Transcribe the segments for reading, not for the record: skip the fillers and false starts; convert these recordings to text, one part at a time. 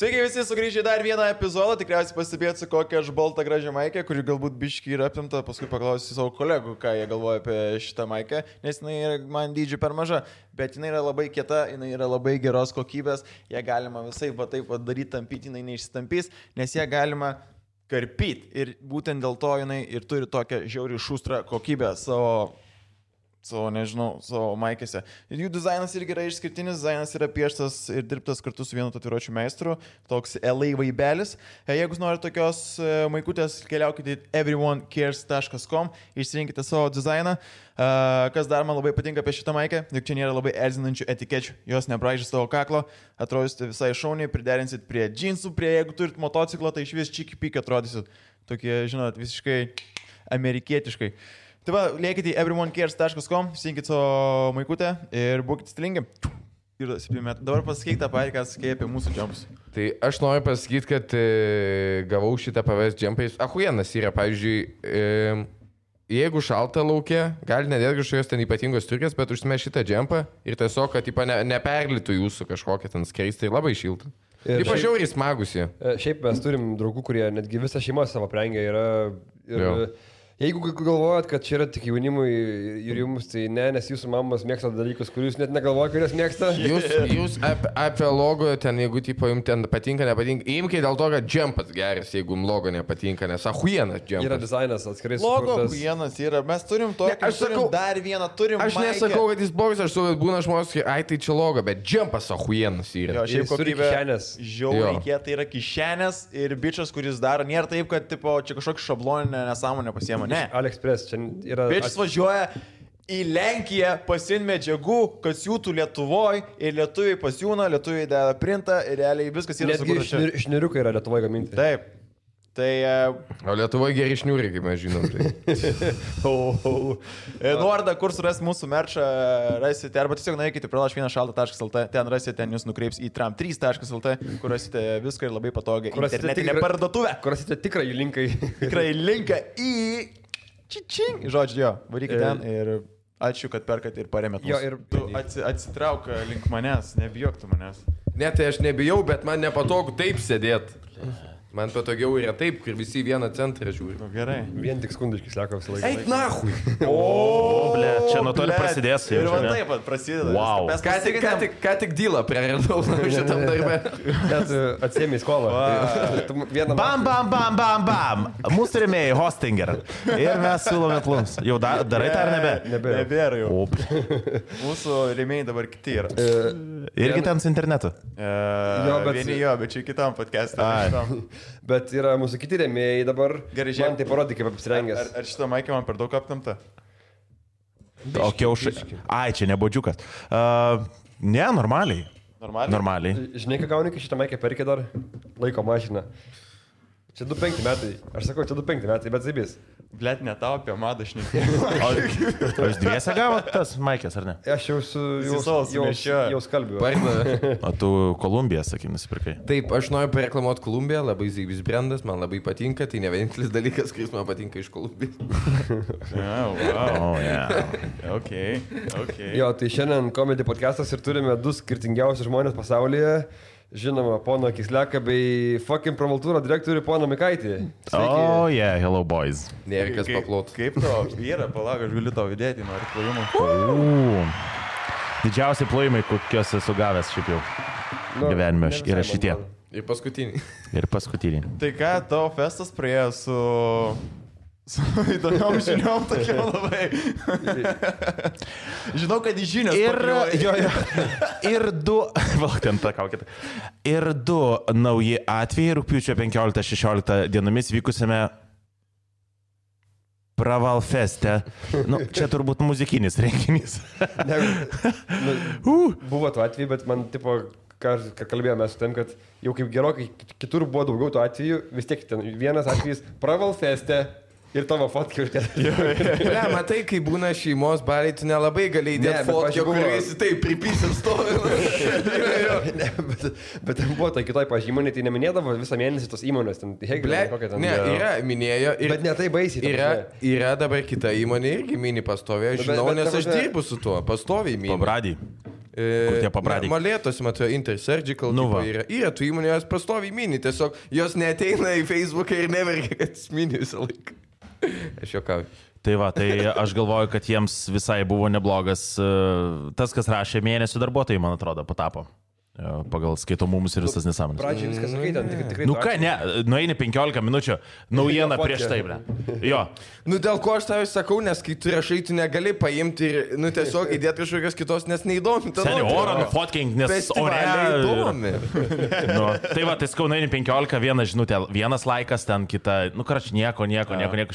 Sveiki visi, sugrįžę dar vieną epizodą, tikriausiai pastebėt su kokia aš balta gražia maikė, kuri galbūt biški yra apimta, paskui paklausysiu savo kolegų, ką jie galvoja apie šitą maikę, nes jinai yra man dydžiai per maža, bet jinai yra labai kieta, jinai yra labai geros kokybės, ją galima visai va taip daryti, tampyti, jinai neišsitampys, nes ją galima karpyti ir būtent dėl to jinai ir turi tokią žiauriai šustrą kokybę savo maikėse. Ir jų dizainas irgi yra išskirtinis, dizainas yra pieštas ir dirbtas kartu su vienu tatuiruočių meistru, toks LA vaibelis. Jeigu norite tokios maikutės, keliaukite į everyonecares.com, išsirinkite savo dizainą. Kas dar man labai patinka apie šitą maikę, juk čia nėra labai erzinančių etikečių, jos nebraižys tavo kaklo, atrodysite visai šauniai, priderinsit prie džinsų, jeigu turit motociklą, tai iš vis čiki-piki atrodysit tokie, žinot, visiškai amerikietiškai. Tai va, liekite į everyonecares.com, sinkit savo maikutę ir būkite stilingi. Ir 7 metų. Dabar pasakyk tą patį, ką sakė apie mūsų džempus. Tai aš noriu pasakyti, kad gavau šitą PVS džempais. Ahuienas yra, pavyzdžiui, jeigu šalta laukia, gali nedėti kažkokios ten ypatingos striukės, bet užsime šitą džempą ir tiesiog, kad neperlitų jūsų kažkokią ten skraistą ir labai šiltą. Taip žiauriai smagusi. Šiaip mes turim draugų, kurie netgi visą šeimą savo prengia yra. Jeigu galvojat, kad čia yra tik jaunimui ir jums, tai ne, nes jūsų mamos mėgsta dalykus, kuriuos net negalvoja, kuriuos mėgsta. Jūs apie logo ten, jeigu tipo jums ten patinka, nepatinka, imkite dėl to, kad džempas geras, jeigu jums logo nepatinka, nes ahuienas džempas. Yra dizainas atskirai sukurtas. Logo ahuienas yra, mes turim tokį, aš sakau, dar vieną turim. Aš nesakau, kad jis blogas, aš sakau, kad būna žmonės, ai tai čia logo, bet džempas ahuienas yra. Jo, šiaip kokybė žiauriai kieta yra kišenės ir bičias, kuris daro, nėra taip, kad tipo, čia kažkokį šabloninę nesąmonę pasiema, ne. AliExpress, čia yra... Bičias važiuoja į Lenkiją, pasiim medžiagų, kad siūtų Lietuvoje ir lietuviai pasiūna, lietuviai deda printą ir realiai viskas yra sukurta čia. Netgi šniriukai yra Lietuvoje gaminti. Taip. Tai... O Lietuvoje geri šniūriai, kaip mes žinom. Tai. Nuorodą, kur suras mūsų merčą, rasite, arba tiesiog nueikite pralaš1šalta.lt, ten rasite, ten jūs nukreips į tram3.lt, kur rasite viską ir labai patogiai internetinę parduotuvę. Kur rasite tikrąjį linką. Tikrąjį linką į... Čičing. Žodžiu, jo, varykite ten ir ačiū, kad perkat ir paremėt mus. Ir tu atsitrauk link manęs, nebijok tu manęs. Ne, tai aš nebijau, bet man nepatogu taip sėdėti. Man patogiau yra taip, kur visi vieną centrą žiūri. Gerai. Vien tik skundiškai sako visą laiką. Eik nahui! Ble, čia nuo to ir prasidės. Ir man taip pat prasideda. Wow. Ką tik dylą prieradau šitam darbe. Net atsiemi skolą. Bam. Mūsų rėmėjai Hostinger. Ir mes siūlome plums. Jau darai tą ar nebe? Nebėra jau. Mūsų rėmėjai dabar kiti yra. Irgi ten su internetu. Vieni jo, bet čia kitam podcast'e. Bet yra mūsų kiti rėmėjai dabar. Gerai, man tai parodė, kaip apsirengęs. Ar šitą maikę man per daug aptamta? O kiaušai. Ai, čia nebodžiukas. Ne, normaliai. Normaliai. Žinai, ką gauni, kai šitą maikę perkė dar? Laiko mašiną. Čia 2-5 metai. Aš sakau, čia 2-5 metai, bet zaibys. Blet, ne tau apie madą šnekė. O jūs dviese gavot tas maikės, ar ne? Aš jau skalbiu. O tu Kolumbiją, sakai, nusipirkai. Taip, aš noriu pareklamuoti Kolumbiją, labai zaibys brandas, man labai patinka, tai ne vienintelis dalykas, kuris man patinka iš Kolumbijos. Okay. Jo, tai šiandien komedy podcastas ir turime 2 skirtingiausius žmonės pasaulyje. Žinoma, pono Kisleką bei fucking Provaltūro direktorių pono Mikaitį. Hello boys. Nėrikas paplot. Kaip to vyra, palauk, aš galiu tau įdėti, nori plojimų. Didžiausi plojimai, kokios esu gavęs šiaip jau gyvenime yra šitie. Ir paskutiniai. Tai ką, tavo festas praėjo su įdomiom žiniom tokiam labai. Žinau, kad į žinios Ir 2 nauji atvejai rugpjūčio 15-16 dienomis vykusiame Pravalfeste. Čia turbūt muzikinis renginys. Buvo tų atvejų, bet man tipo... Ką kalbėjome su tem, kad jau kaip gerokai kitur buvo daugiau tų atvejų, vis tiek ten vienas atvejis Pravalfeste. Ir tavo fotkai užkėlė. Ne, matai, kai būna šeimos baliai, tu nelabai gali įdėti fotkę, kuriuosi taip pripysim stovi. Bet ten buvo tai kitoj pažymonė, tai neminėdavo visą mėnesį tos įmonės. Ne, yra, minėjo. Bet ne tai baisiai. Yra dabar kita įmonė irgi mini pastoviai, aš žinau, nes aš dirbu su tuo, pastoviai mini. Pabradį. Kur tie pabradyk? Molėtos, matau, Intersurgical. Nu va. Yra tų įmonių, jos pastoviai mini, tiesiog jos neateina į Facebooką ir neverkia, kad mini visą laiką. Aš juokauju. Tai va, tai aš galvoju, kad jiems visai buvo neblogas tas, kas rašė mėnesių darbuotojai, man atrodo, patapo. Pagal skaitomumus ir visas nesąmonės. Pradžiai viskas skaitant, tikrai. Nu ką, ne, nueini 15 minučių, naujiena prieš tai, ble. Jo. Nu dėl ko aš tavai sakau, nes kai tu rašai, tu negali paimti ir, nu tiesiog įdėti kažkokios kitos, nes neįdomi. Seniai orą nufotkink, nes ore įdomi. Nu, tai va, tai skau, nueini 15, viena žinutė, vienas laikas, ten kita, nu karač, nieko,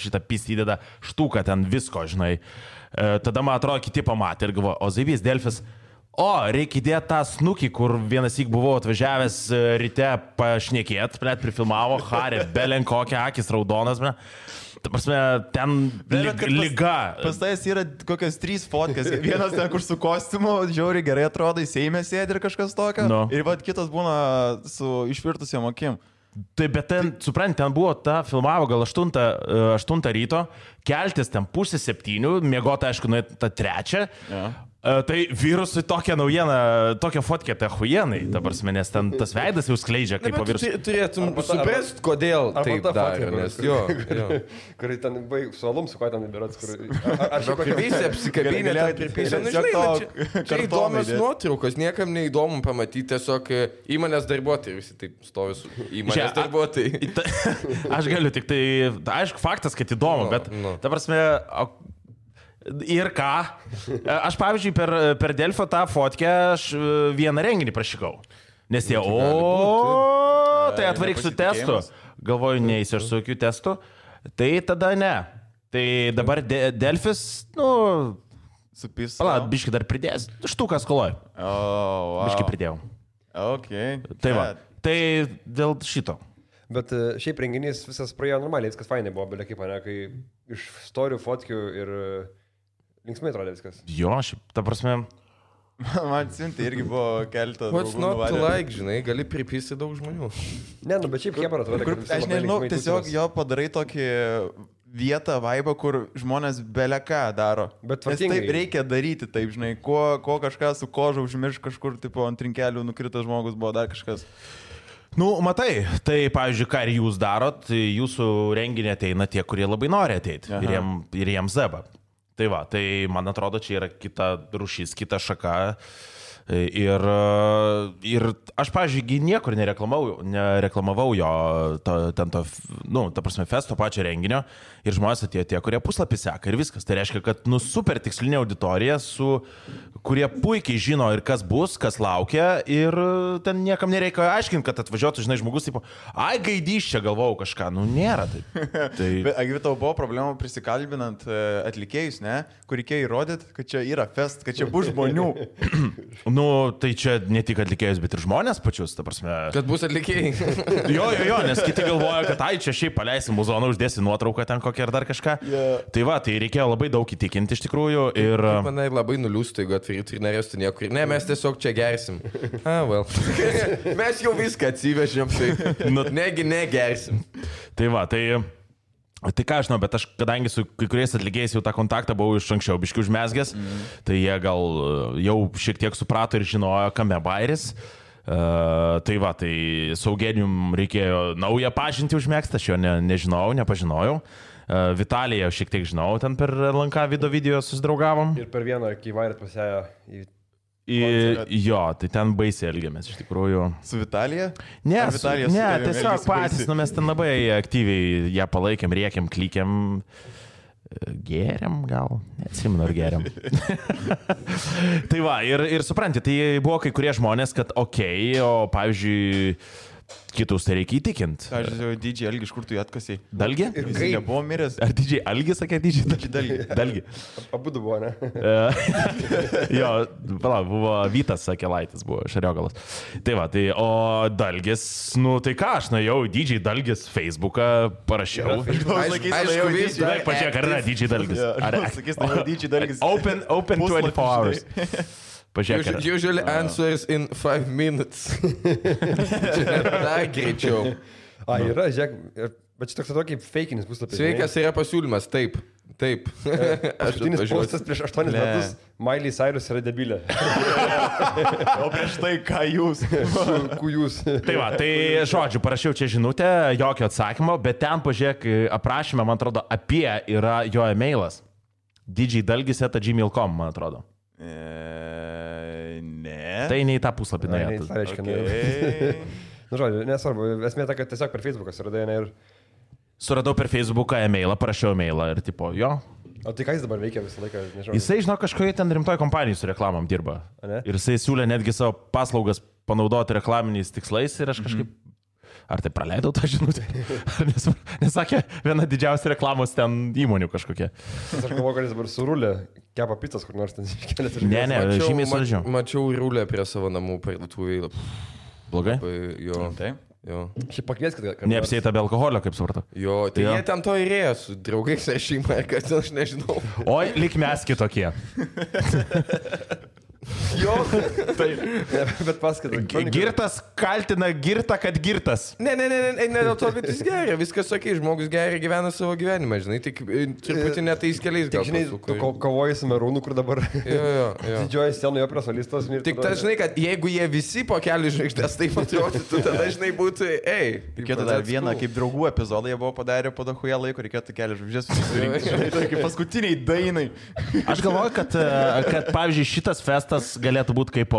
šitą pistį įdeda štuką, ten visko, žinai. Tada, man atrodo, kiti pamatė ir galvo, o Zaivys Delfis, reikia įdėti tą snukį, kur vienas įk buvau atvažiavęs ryte pašnekėt, net prifilmavo, Harė, belen kokia, akis raudonas, ble. Ta prasme, ten liga. Pas tais yra kokias 3 fotkės. Vienas ten, kur su kostiumu, žiauriai gerai atrodo, į Seime sėdi ir kažkas tokio. No. Ir vat kitas būna su išvirtusiam akim. Tai bet ten, suprant, ten buvo filmavo gal 8 ryto, keltis ten 6:30, miegota, aišku, nuėti tą 3. Ja. Tai virusui tokią naujieną, tokią fotkę, tai huienai, ta prasme, nes ten tas veidas jau skleidžia kaip po virusų. Turėtum suprasti, kodėl taip daro, nes jo. Kur ten su alum, su kuo ten įberats, kur... Aš jau pripysė, apsikabinė, ten pripysė. Nu, žinai, čia įdomios nuotraukos, niekam neįdomu pamatyti, tiesiog įmonės darbuotojai, visi taip stovi su įmonės darbuotojai. Aš galiu tik tai, aišku, faktas, kad įdomu, bet ta prasme... Ir ką? Aš, pavyzdžiui, per Delfio tą fotkę aš vieną renginį prašykau. Nes jie, tai atvaryk su testu. Galvoju, neįsi aš su jokių testų. Tai tada ne. Tai dabar Delfis, supis. Pala, biški dar pridės. Štukas koloj. Wow. Biški pridėjau. Okay. Tai va. Tai dėl šito. Bet šiaip renginys visas praėjo normaliai, viskas fainai buvo, belia kaip mane, kai iš storių, fotkių ir linksmai atrodė viskas. Jo, šiaip, ta prasme... Man siunti irgi buvo keletą. What's not to like, žinai, gali pripysti daug žmonių. Ne, bet šiaip Hebra atrodė, kad... Aš nežinau, tiesiog jo padarai tokį vietą, vaibą, kur žmonės beleką daro. Bet nes taip reikia daryti, taip, žinai, ko kažką su koža užmirš kažkur, tipo, ant trinkelių nukritas žmogus buvo dar kažkas. Nu, matai, tai, pavyzdžiui, ką ir jūs darot, jūsų renginį ateina tie, kurie labai nori ateiti. Ir jiems zeba. Tai va, tai man atrodo, čia yra kita rūšis, kita šaka. Ir aš, pavyzdžiui, niekur nereklamavau jo ta prasme, festo pačio renginio. Ir žmonės atėjo tie, kurie puslapį seka ir viskas. Tai reiškia, kad super tikslinė auditorija, kurie puikiai žino ir kas bus, kas laukia. Ir ten niekam nereikia aiškinti, kad atvažiuotų, žinai, žmogus, tipo, gaidys čia galvojau kažką. Nu, nėra taip. Bet, Agvi, tau buvo problemų prisikalbinant atlikėjus, ne? Kur reikėjo įrodyti, kad čia yra fest, kad čia bus žmonių. Nu, tai čia ne tik atlikėjus, bet ir žmonės pačius, ta prasme. Kad bus atlikėjai. Jo, nes kiti galvoja, kad čia šiaip paleisim muzoną, uždėsi nuotrauką ten kokią ir dar kažką. Yeah. Tai va, tai reikėjo labai daug įtikinti iš tikrųjų. Ir... Manai labai nuliūstų, jeigu atvyrytų ir norėstų niekur. Ne, mes tiesiog čia gersim. Mes jau viską atsivežėm, tai negi negersim. Tai va, tai ką aš žinau, bet aš, kadangi su kai kuriais atlikėjais jau tą kontaktą buvau iš anksčiau biškių užmesgęs, tai jie gal jau šiek tiek suprato ir žinojo, kame bairis. Tai va, tai su Eugenijum reikėjo naują pažintį užmėgsti, aš jo nepažinojau. Vitaliją šiek tiek žinau, ten per LNK video susidraugavom. Ir per vieną, kai vairėt pasėjo į... Jo, tai ten baisiai elgiamės, iš tikrųjų. Su Vitalija? Ne, tiesiog patys, mes ten labai aktyviai ją palaikėm, rėkėm, klikėm. Geriam gal, neatsimenu ar geriam. Tai va, ir supranti, tai buvo kai kurie žmonės, kad okei, o pavyzdžiui, kitus tai reikia įtikinti. Aš žinau, DJ Algi, iš kur tu jį atkasiai? Dalgi? Ir jis nebuvo miręs. Ar DJ Algi sakė DJ Dalgi? Abudu buvo, ne? Jo, palauk, buvo Vytas Sakelaitis, buvo Šariogalas. Tai va, tai, o Dalgis, nu tai ką, aš nuėjau DJ Dalgis Facebooką, parašiau. Aišku, pažiūrėk, ar yra DJ Dalgis. Sakys, tai DJ Dalgis. Open 24 hours. Pažiūrėk. Usually answers in 5 minutes. Čia net dar greičiau. Yra, žiūrėk, bet čia toks tokį fakinis puslapis. Sveikas, yra pasiūlymas, taip. Taip. Paskutinis postas prieš 8 metus. Miley Cyrus yra debilė. O prieš tai ką jūs? Kujus. Tai va, tai žodžiu, parašiau čia žinutę, jokio atsakymo, bet ten pažiūrėk aprašymę, man atrodo, apie yra jo e-mailas. djdalgis@gmail.com, man atrodo. Ne. Tai ne į tą puslapį nuėjo. Tai reiškia, nu, žodžiu, nesvarbu, esmė ta, kad tiesiog per Facebooką suradai, ne ir... Suradau per Facebooką e-mailą, parašiau e-mailą ir tipo, jo. O tai ką jis dabar veikia visą laiką, nežinau. Jisai, žinau, kažkoje ten rimtoje kompanijoje su reklamom dirba. Ir jisai siūlė netgi savo paslaugas panaudoti reklaminiais tikslais ir aš kažkaip... Ar tai praleidau tą žinutę? Nesakė, viena didžiausia reklamos ten įmonių kažkokia. Aš galvoju, kad jis dabar surulė, kepa pizzas kur nors ten iškelės. Ne, žymiai saldžiau. Mačiau rūlę prie savo namų parduotuvėje. Blogai? Jo. Taip. Jo. Šiaip pakvieskit. Neapsieita be alkoholio, kaip supratau. Jo, tai jie ten to įrėjo su draugais ar šeima, kad aš nežinau. Oi, lik mes kitokie. Jo, tai. Bet paskaitai. Girtas kaltina girtą, kad girtas. Ne, dėl to, bet jis geria, viskas sakai, žmogus geria, gyvena savo gyvenimą, žinai, tik truputį netais keliais gal. Žinai, tu kovoji su Merūnu, kur dabar jo. didžioji scenoje prie solistos. Tik tas, žinai, kad jeigu jie visi po kelių žvaigždės taip atrodytų, tada, žinai, būtų, Reikėtų dar vieną, kaip draugų epizodą jie buvo padarę po dahuja laiko, reikėtų kelių žvaigždės susirinkti. Žinai, tai kaip paskutiniai dainai. Aš galvoju, kad pavyzdžiui, šitas festas galėtų būti kaip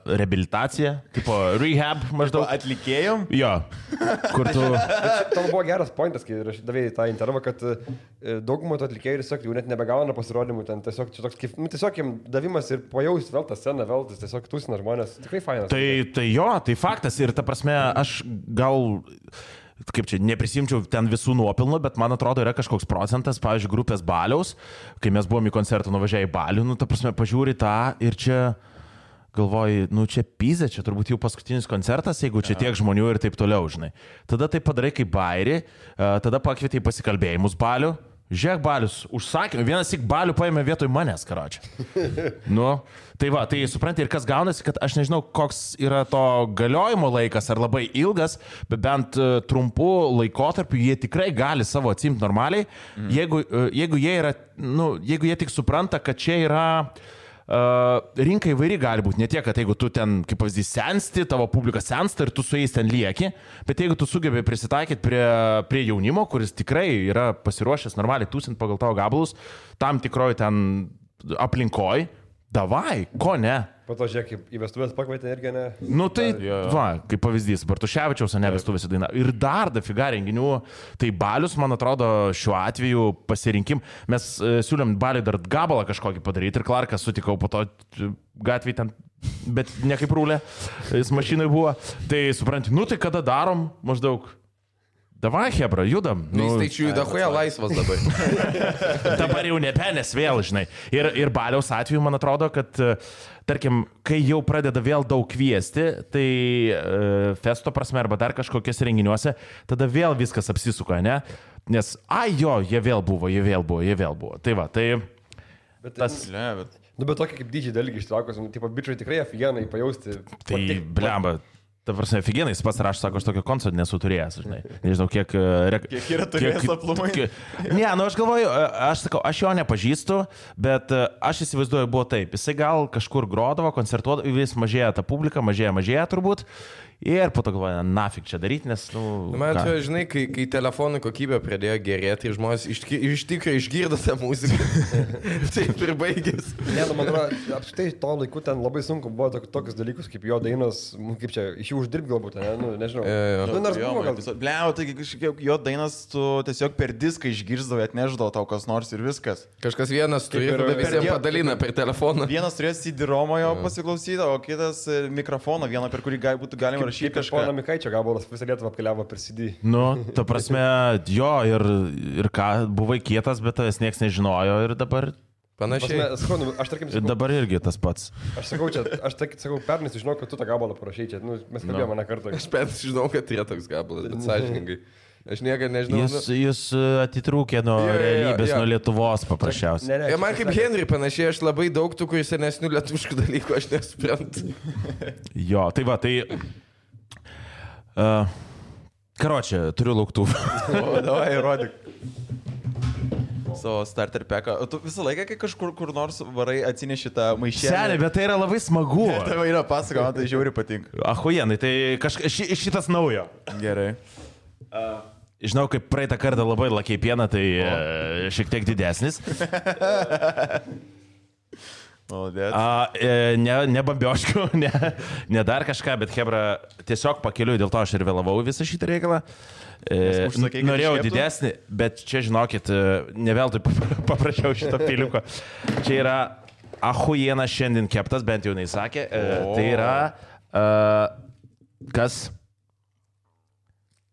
reabilitacija, kaip rehab maždaug. Atlikėjom? Jo. Kur tu... Tavo buvo geras pointas, kai davėjai tą intervą, kad daugumą tų atlikėjų tiesiog jau net nebegauna pasirodymų, ten tiesiog čia toks kaip, tiesiog jiems davimas ir pajausti vėl tą sceną, vėl tas tiesiog tūsina žmonės. Tikrai fainas. Tai jo, tai faktas ir ta prasme, aš gal... Kaip čia, neprisimčiau ten visų nuopilnų, bet man atrodo yra kažkoks procentas, pavyzdžiui, grupės Baliaus, kai mes buvom į koncertą nuvažiavę į Balių, ta prasme, pažiūri tą ir čia galvoji, čia pizė, čia turbūt jau paskutinis koncertas, jeigu čia tiek žmonių ir taip toliau, žinai. Tada tai padarai kaip bairį, tada pakvietė į pasikalbėjimus Balių. Žiūrėk, Balius, užsakymą, vienas tik Balių paėmė vietoj manęs, karočią. Tai va, tai supranti ir kas gaunasi, kad aš nežinau, koks yra to galiojimo laikas, ar labai ilgas, bet bent trumpų laikotarpių jie tikrai gali savo atsimti normaliai, jeigu jie yra, jeigu jie tik supranta, kad čia yra... rinka įvairi gali būti, ne tiek, kad jeigu tu ten, kaip pavyzdys, sensti, tavo publika sensta ir tu su jais ten lieki, bet jeigu tu sugebi prisitaikyti prie jaunimo, kuris tikrai yra pasiruošęs normaliai tūsint pagal tavo gabalus, tam tikroj ten aplinkoj, davai, ko ne? Po to žiūrėk, kaip į vestuvės pakvietė irgi, ne? Tai, va, kaip pavyzdys, Bartuševičiaus, ne vestuvėse daina. Ir dar dafiga renginių, tai Balius, man atrodo, šiuo atveju pasirinkim. Mes siūlėm Baliui dar gabalą kažkokį padaryti ir Clarką sutikau po to gatvėje ten, bet ne kaip rūlė, jis mašinai buvo. Tai supranti, tai kada darom maždaug? Davai, hebra, judam. Jis tai čia judahuja laisvas dabar. Dabar jau nepenės vėl, žinai. Ir Baliaus atveju, man atrodo, kad, tarkim, kai jau pradeda vėl daug kviesti, tai festo prasme arba dar kažkokiuose renginiuose, tada vėl viskas apsisuka, ne? Nes, jie vėl buvo. Tai va, tai... Bet tas... bet tokia kaip didžiai dalykai ištraukus, tipo, bičiai tikrai aфиgenai pajausti. Tai, blemba. Ta prasme, aфиgenai, jis pats rašo, sako, aš tokio koncerto nesu turėjęs, žinai. Nežinau, kiek yra turėjęs aplumai. Ne, aš galvoju, aš sakau, aš jo nepažįstu, bet aš įsivaizduoju, buvo taip. Jisai gal kažkur grodavo, koncertuodavo, vis mažėja ta publika, mažėja turbūt. Ir po to galvoja, nafik čia daryti, nes, Man čia, žinai, kai telefonų kokybė pradėjo gerėti ir žmonės iš tikrųjų išgirdo tą muziką. Taip ir baigės. Ne, man atrodo, apskritai to laiku ten labai sunku buvo tokius dalykus, kaip jo dainos, kaip čia, iš jų uždirbti galbūt, ne, nežinau. Nors buvo gal. Bliau, tai kažkiek jo dainas tu tiesiog per diską išgirsdavai, atneždavo tau kas nors ir viskas. Kažkas vienas turėjo, tada visiems padalina per telefoną. Vienas turėjo CD-ROMą jo pasiklausyti, o kitas mikrofoną, vieną per kurį būtų galima rašyti kažką. Pono Mikaičio gabalas visą Lietuvą apkeliavo per CD. Ta prasme, jo, ir ką, buvai kietas, bet tas niekas nežinojo ir dabar... Panašiai. Aš tarkim sakau... Dabar irgi tas pats. Aš sakau, pernai žinau, kad tu tą gabalą parašai čia. Mes kalbėjome mane kartą. Aš pernai žinau, kad yra toks gabalas, bet sąžiningai. Aš niekada nežinau. Jūs atitrūkė nuo realybės, nuo Lietuvos paprasčiausiai. Ir man kaip Henry panašiai, aš labai daug tų, kuris senesnių lietuviškų dalykų aš nesuprantu. Jo, tai va, tai... Karočią, turiu lauktuvą. Davai, rodyk. Savo starter packą. O tu visą laiką, kai kažkur kur nors varai atsineši tą maišelį. Senė, bet tai yra labai smagu. Tai yra pasakoma, tai žiauri patinka. Ahujenai, tai šitas naujo. Gerai. Žinau, kaip praeitą kartą labai lakiai pieną, tai šiek tiek didesnis. Ne bambioškių, ne dar kažką, bet Hebra tiesiog pakeliu, dėl to aš ir vėlavau visą šitą reikalą. Norėjau didesnį, bet čia žinokit, ne veltui paprašiau šito piliuko. Čia yra ahujena šiandien keptas, bent jau neįsakė. Tai yra kas?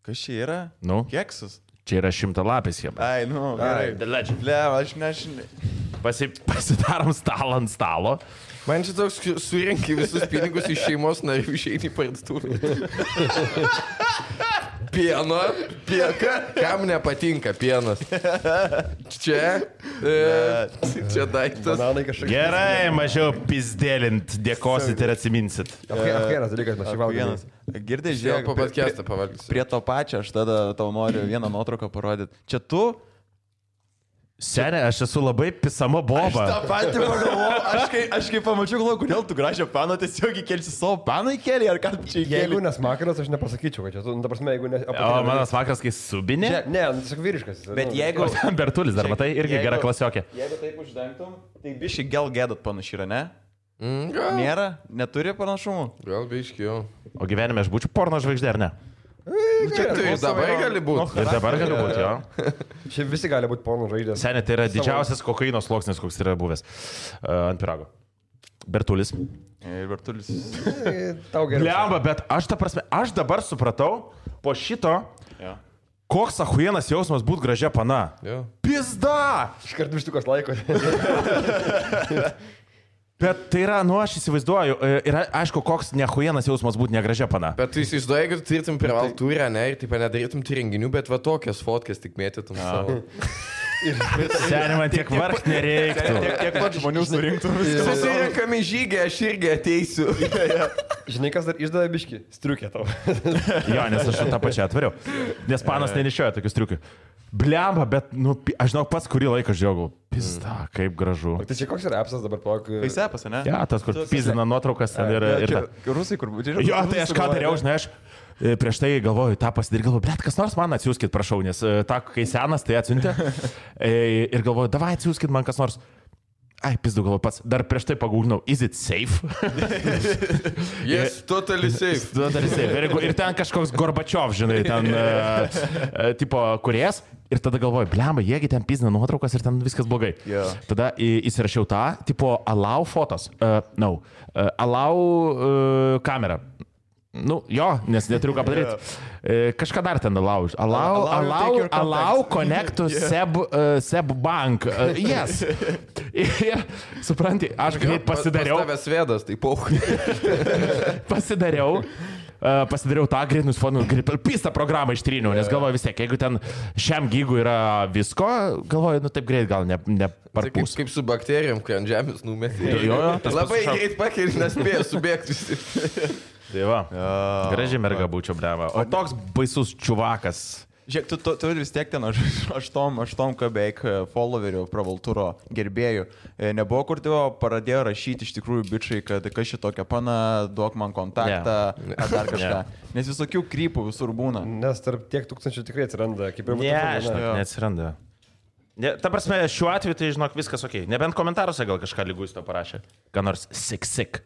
Kas čia yra? Nu? Keksas. Čia yra 100-lapis Hebra. Ai, nu, gerai. The legend. Le, aš nežinai. Pasidarom stalą ant stalo. Man čia toks surinki visus pinigus iš šeimos narių išeini į parduotuvę. Pieno, kam nepatinka pienas? Čia daiktas. Gerai, mažiau pizdėlint, dėkosit ir atsiminsit. Vienas dalykas, mes šį valgome. Girdai, Vėl žiūrėk, po podcastą pavalgysiu. prie to pačio aš tada tau noriu vieną nuotrauką parodyti. Čia tu? Senė, aš esu labai pisama boba. Aš tą patį pagalvojau, aš kai pamačiau, galvoju, kodėl tu gražią paną tiesiog įkelsi savo paną įkelį, ar ką čia įkelį? Jeigu nesmakaras, aš nepasakyčiau, kad čia tu, ta prasme, jeigu ne... O mano smakaras, kai subinė. Ne, tiesiog vyriškas. Bet jeigu... Bertulis dar, matai, irgi gera klasiokė. Jeigu taip uždengtum, tai biškai gal gėdat panašiai yra, ne? Gal. Nėra? Neturi panašumų? Gal biškiau. O gyvenime aš būčiau porno žvaigždė, ar ne? Čia tu ir dabar gali būti. Ir dabar galiu būti, jo. Čia visi gali būti porno žvaigždės. Senė, tai yra didžiausias kokaino sluoksnis, koks yra buvęs ant pirago. Bertulis. Ir Bertulis. Tau geriau. Lemba, bet aš ta prasme, aš dabar supratau, po šito, Ja. koks ahujenas jausmas būt gražia pana. Jo. Pizda! Iškart vištukas laiko. Bet tai yra, nu aš įsivaizduoju, yra aišku, koks nehujenas jausmas būti negražia pana. Bet tu įsivaizduoji, kad tu turėtum privalų turę, ne, ir taip nedarytum tų renginių, bet va tokias fotkas tik mėtytum savo. Seniai, man tiek vargt nereiktų. Tiek pat žmonių surinktų. Susirinkami žygį, aš irgi ateisiu. Žinai, kas dar išdavė biškį? Striukė tau. Jo, nes aš tą pačią atvariau. Nes panas nenešioja tokius triukių. Blemba, bet, nu, aš žinau, pats kurį laiką žiūrėjau. Pizda, kaip gražu. Tai čia koks yra appsas dabar plak? Paisepas, ne? Ja, tas, kur pizdina nuotraukas ten ir... Rusai, kur būtų. Jo, tai aš ką dariau, žinai, aš prieš tai galvoju, tą pasidaryti, galvoju, blet, kas nors man atsiųskit, prašau, nes tą, kai senas, tai atsiuntė. Ir galvoju, davai atsiųskit man kas nors. Ai, pizdu galvoju pats, dar prieš tai pagūglinau, is it safe? Yes, totally safe. Totally safe. Ir ten kažkoks Gorbačiov, žinai, ten tipo kuriejas. Ir tada galvoju, blemba, jiegi ten pizdina nuotraukas ir ten viskas blogai. Yeah. Tada įsirašiau tą, tipo allow photos. Allow kamera. Nu, jo, nes neturiu ką padaryti. Kažką dar ten allow. Allow connect to Seb Bank. Yes. Ir, supranti, aš greit pasidariau. Pas tavęs vėdas, tai pauchui. Pasidariau tą greit nusifonu, pistą programą ištryniau, nes galvoju vis tiek, jeigu ten šiam gigui yra visko, galvoju, nu taip greit gal neparpūs. Kaip su bakterijom, kai ant žemės numetė. Jo, Labai greit pakeli, nespėjo subėgti visi. Tai va, gražiai merga būčiau, bleva. O toks baisus čiuvakas. Žiūrėk, tu vis tiek ten 8 beveik followerių pravalturo gerbėjų. Nebuvo, kur tėvo pradėjo rašyti iš tikrųjų bičiai, kad kas šitokia pana, duok man kontaktą, ar dar kažką. Nes visokių krypų visur būna. Nes tarp tiek tūkstančių tikrai atsiranda, kaip ir Ne, žinok, neatsiranda. Ta prasme, šiuo atveju tai, žinok, viskas ok. Nebent komentaruose gal kažką lygus to parašė. Ką nors sik.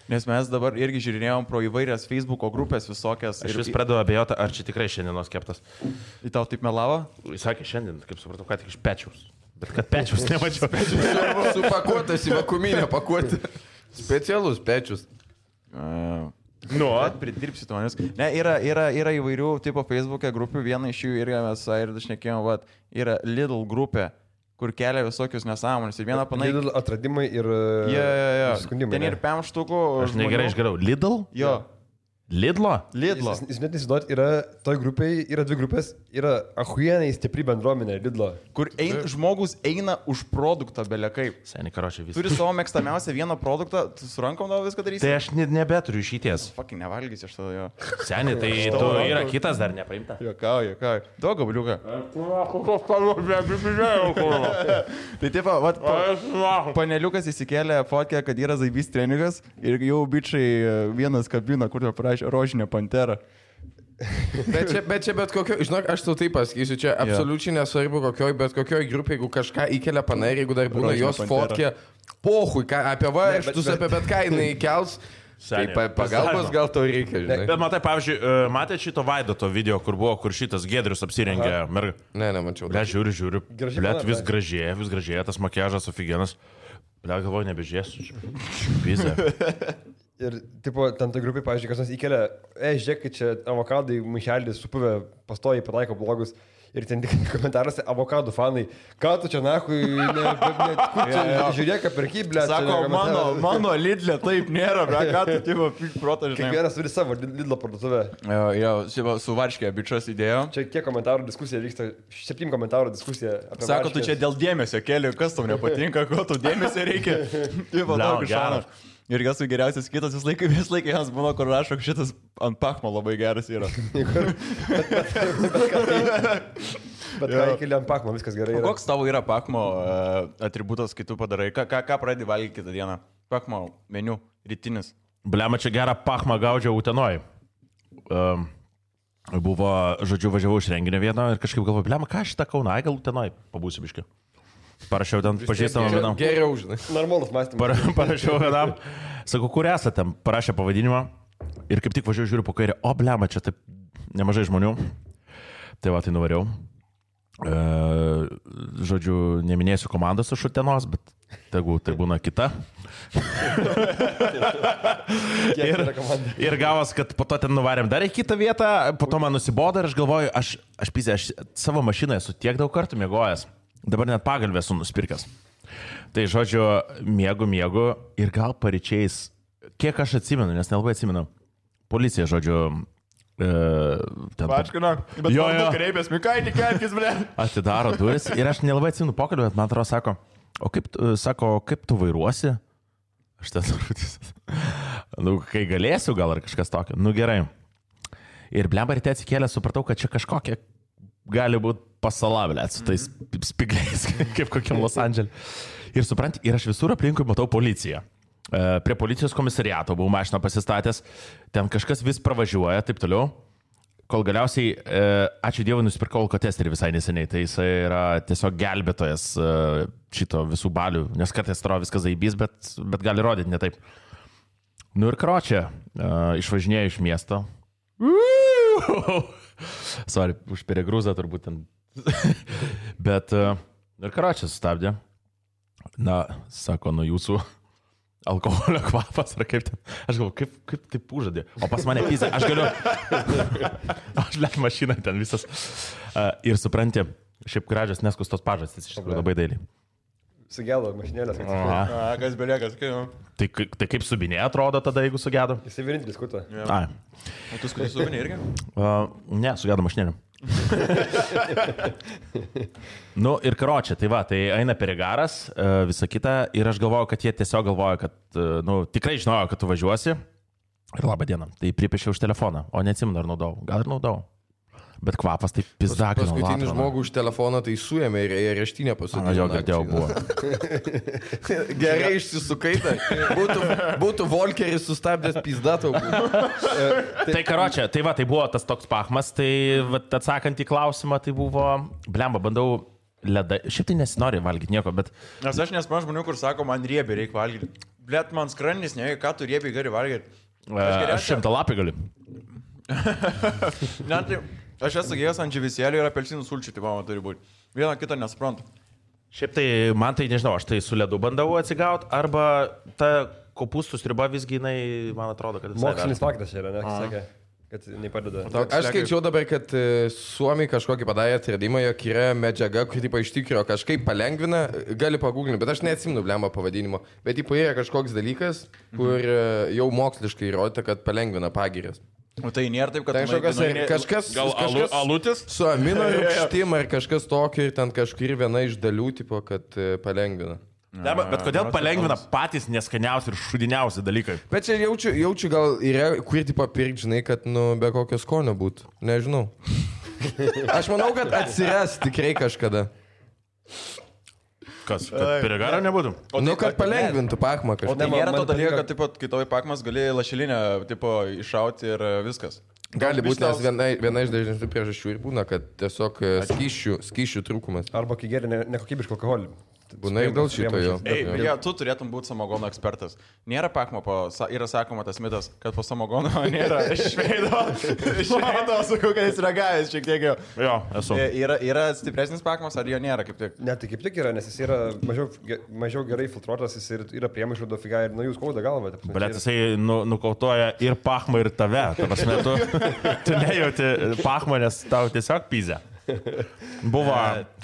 Nes mes dabar irgi žiūrėjom pro įvairias Facebook'o grupės visokias. Aš vis pradedu abejoti, ar čia tikrai šiandienos keptas. Į tau taip melavo? Jis sakė šiandien, kaip supratau, ką tik iš pečiaus. Bet kad pečiaus nemačiau. Supakuotas į vakuminę pakuotę. Specialus pečius. Nu, pridirbsi to, nes... Ne, yra įvairių tipo Facebook'e grupių, viena iš jų irgi mes ir dažnekėjom, yra Lidl grupė, kur kelia visokius nesąmonės. Ir vieną panai... Lidl atradimai ir... Jo. Skundimai. Ten ir 5 štukų. aš negerai išgeriau. Lidl? Jo. Lidlo? Lidlo. Jūs net įsivaizduot, toj grupėje yra 2 grupės, yra ahuienai stipri bendruomenė Lidlo. Kur žmogus eina už produktą belia kaip. Seniai, karočią, visą. Turi savo mėgstamiausią vieną produktą, tu su rankom tau viską darysi. Tai aš nebeturiu išeities. Fucking nevalgysi aš tada jo. Seniai, tai tu yra kitas dar nepaimta. Jokauju. Duok gabliuką. Tai taip, paneliukas įsikėlė fotkę, kad yra zaibys treningas ir jau bičiai vienas kabina, kur parašė rožinę panterą. Bet čia bet kokio, žinok, aš tau taip pasakysiu, čia absoliučiai nesvarbu bet kokioj grupė, jeigu kažką įkelia panai, jeigu dar būna jos fotkė, pohui, apie varžtus, apie bet ką jinai kels. Tai pagalbos gal to reikia, žinai. Bet matai, pavyzdžiui, matėte šito Vaidoto video, kur šitas Giedrius apsirengė mergą? Ne, nemačiau. Ble, žiūriu. Ble, vis gražėja, tas makiažas ofigenas. Ble, galvoju, nebežiesiu. Pizė. Ir, tipo, ten tai grupiai, pavyzdžiui, kas nors įkelia, žiūrėk, kad čia avokadai maišelį supuvę pastoji pataiko blogus. Ir ten tik komentaruose avokadų fanai, ką tu čia nahui, žiūrėk, perky, ble. Sako, mano Lidlė taip nėra, ble, ką tu tipo protą žinai. Kiekvienas turi savo Lidlo parduotuvę. Jo, su Varškė bičias įdėjo. Čia kiek komentarų diskusija vyksta, 7 komentarų diskusija apie Sako, tu čia dėl dėmesio keli, kas tau nepatinka, ko tau dėmesio reikia. Tipo, daug šanas. Ir kas su geriausias kitas, vis laikai jiems būna, kur rašo, šitas ant pachmo labai geras yra. Bet ką įkeli ant pachmo, viskas gerai yra. Koks tavo yra pachmo atributas, kai tu padarai? Ką pradedi valgyti kitą dieną? Pachmo meniu, rytinis. Blema, čia gerą pachmą gaudžiau Utenoj. Buvo, žodžiu, važiavau iš renginio vieno ir kažkaip galvoju, blema, ką šitą Kauną, gal Utenoj pabūsiu biški. Parašiau ten pažįstamą vienam. Geriau, žinai. Normalus mąstymas. Parašiau vienam. Sakau, kur esate? Parašė pavadinimą. Ir kaip tik važiuoju, žiūriu po kairę. O, blema, čia taip nemažai žmonių. Tai va, tai nuvariau. Žodžiu, neminėsiu komandos iš Utenos, bet tegu tai būna kita. Ir gavos, kad po to ten nuvarėm dar į kitą vietą. Po to man nusibodo ir aš galvoju, aš savo mašiną esu tiek daug kartų miegojęs. Dabar net pagalbę esu nuspirkęs. Tai žodžiu, miegu ir gal paryčiais, kiek aš atsimenu, nes nelabai atsimenu, policija, žodžiu, Pačkino, bet jo kreipės, Mikaitį kelkis, ble. Atidaro duris ir aš nelabai atsimenu pokalbę, bet man atrodo, kaip tu vairuosi? Aš ten kai galėsiu gal ar kažkas tokio. Gerai. Ir blemba ryte atsikėlę, supratau, kad čia kažkokia gali būti pasalavlė su tais spigliais, kaip kokiam Los Andželė. Ir supranti, ir aš visur aplinkui matau policiją. Prie policijos komisariato buvau mašiną pasistatęs, ten kažkas vis pravažiuoja, taip toliau, kol galiausiai, ačiū Dievui, nusipirkau alkotesterį visai neseniai, tai jisai yra tiesiog gelbėtojas šito visų balių, nes kartais atrodo viskas zaibys, bet gali rodyti ne taip. Ir karočią, išvažinėjau iš miesto. Sorry, už peregrūzą turbūt ten. Bet, ir karočią sustabdė. Sako, jūsų alkoholio kvapas, ar kaip ten. Aš galvoju, kaip taip užadė. O pas mane pizė, aš galiu. Aš lėk mašiną ten visas. Ir supranti, šiaip gražios neskustos pažastys, iš tikrųjų labai dailiai. Sugėdo mašinėlės. Kas beliekas, Tai kaip subinė atrodo tada, jeigu sugėdo? Jisai vienintelis skuto. O tu skuto subinė irgi? Ne, sugėdo mašinėlė. Ir karočią, tai va, tai eina perigaras, visa kita, ir aš galvoju, kad jie tiesiog galvoja, kad, tikrai žinojo, kad tu važiuosi. Ir labą dieną, tai pripiešiau už telefoną, o neatsimenu, ar naudau. Gal ir naudau. Bet kvapas tai pizdakino. Paskutinį žmogų už telefoną tai suėmė ir areštinę pasodino. Jo, girdėjau, buvo. Gerai išsisukai, būtų Volkeris sustabdęs pizdatą. Tai karočią, tai va, tai buvo tas toks pachmas, tai atsakant į klausimą, tai buvo, blemba, bandau ledą, šiaip tai nesinori valgyti nieko, bet... Nes aš nesman žmonių, kur sako, man riebiai reikia valgyti. Blet, man skrandis, ne, ką tu riebiai gali valgyti. Aš 100 lapį galiu. Aš esu gėjęs ant dživisėlių ir apelsinų sulčių, tai man turi būti. Vieną kitą nesuprantu. Šiaip tai, man tai nežinau, aš tai su ledu bandau atsigauti, arba ta kopūstų sriuba visgi, man atrodo, kad... Mokslinis faktas yra, ne, sakė, kad nepadeda. Aš skaičiau dabar, kad Suomiai kažkokį padarė atradimą, jog yra medžiaga, kuri iš tikrųjų kažkaip palengvina, gali paguglinti, bet aš neatsimenu blemą pavadinimo, bet yra kažkoks dalykas, kur jau moksliškai įrodyta, kad palengvina pagirias. O tai nėra taip, kad... Tai kažkas... Gal alutis? Su amino rūgštim ar kažkas tokio ir ten kažkur viena iš dalių, tipo, kad palengvina. Ne, bet kodėl palengvina patys neskaniausi ir šudiniausi dalykai? Bet čia jaučiu gal yra, kur tipo pirkti, žinai, kad be kokio skonio būtų. Nežinau. Aš manau, kad atsiras tikrai kažkada. Kas? Kad piragaro nebūtų? Kad palengvintų pakmą kažką. O tai nėra to dalyko, kad tipo, kai tavai pakmas gali lašelinę tipo, iššauti ir viskas. Gali būti, nes viena iš dažnesnių priežasčių ir būna, kad tiesiog skysčių trūkumas. Arba kai geri nekokybišką alkoholį. Būna ir dėl šito jo. Tu turėtum būti samogono ekspertas. Nėra pakmo, yra sakoma tas mitas, kad po samogono nėra šveido, sakau, kad jis ragavęs šiek tiek jau. Jo, esu. Yra stipresnis pakmas, ar jo nėra kaip tik? Ne, tai kaip tik yra, nes jis yra mažiau gerai filtruotas, jis yra priemaišų dofiga ir nuo jų skauda galva. Bet jisai nukautoja ir pakmą, ir tave. Ta prasme, tu nejauti pakmą, nes tau tiesiog pyzė. Buvo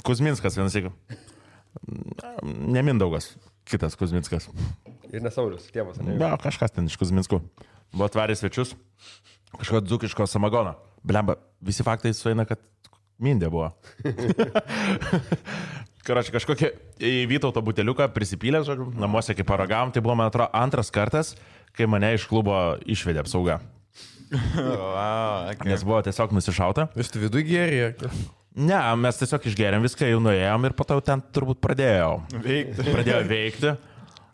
Kuzminskas vienas iki. Ne Mindaugas, kitas Kuzminskas. Ir nesaulius, tėvas. Na, kažkas ten iš Kuzminskų. Buvo atvarė svečius, kažkokio dzūkiško samagono. Blemba, visi faktai sueina, kad mindė buvo. Karoči, kažkokie į Vytauto buteliuką prisipylė, namuose kaip paragavom, tai buvo, man atrodo, antras kartas, kai mane iš klubo išvedė apsauga. Nes buvo tiesiog nusišauta. Jūs tu vidų gėrė? Ne, mes tiesiog išgėrėm viską, jau nuėjom ir po to ten turbūt pradėjau veikti.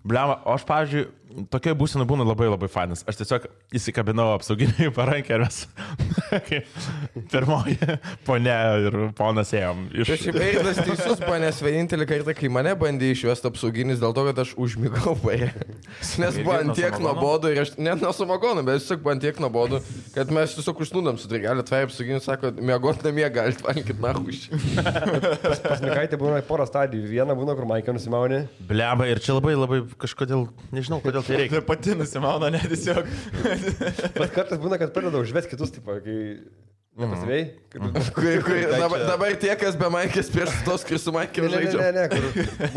Bliama, o aš, pavyzdžiui, tokia būsena būna labai labai fainas. Aš tiesiog įsikabinau apsauginį parankę ir mes pirmoji ponia ir ponas ėjom. Šiaip Eidas teisus, panės vienintelį kartą, kai mane bandė išvesti apsauginis dėl to, kad aš užmigau paė. Nes buvo antiek nuobodu ir aš, net nuo samagono, bet tiesiog buvo antiek nuobodu, kad mes tiesiog užsnūdam su trigalė, tvai apsauginis sako, miegot namie galit valgyti nahuš. Pas Mikaitį būna porą stadijų. Viena būna, kur Maikė nusimauni. Bliama, ir čia labai labai kažkodėl, nežinau, kodėl tai reikia. Tai pati nusimauna, ne tiesiog. Bet kartais būna, kad pradeda užvesti kitus, tipo, kai nepasivėjai. Dabar tie, kas be Maikės prieš tos, kai su Maikėm žaidžia. Ne, kur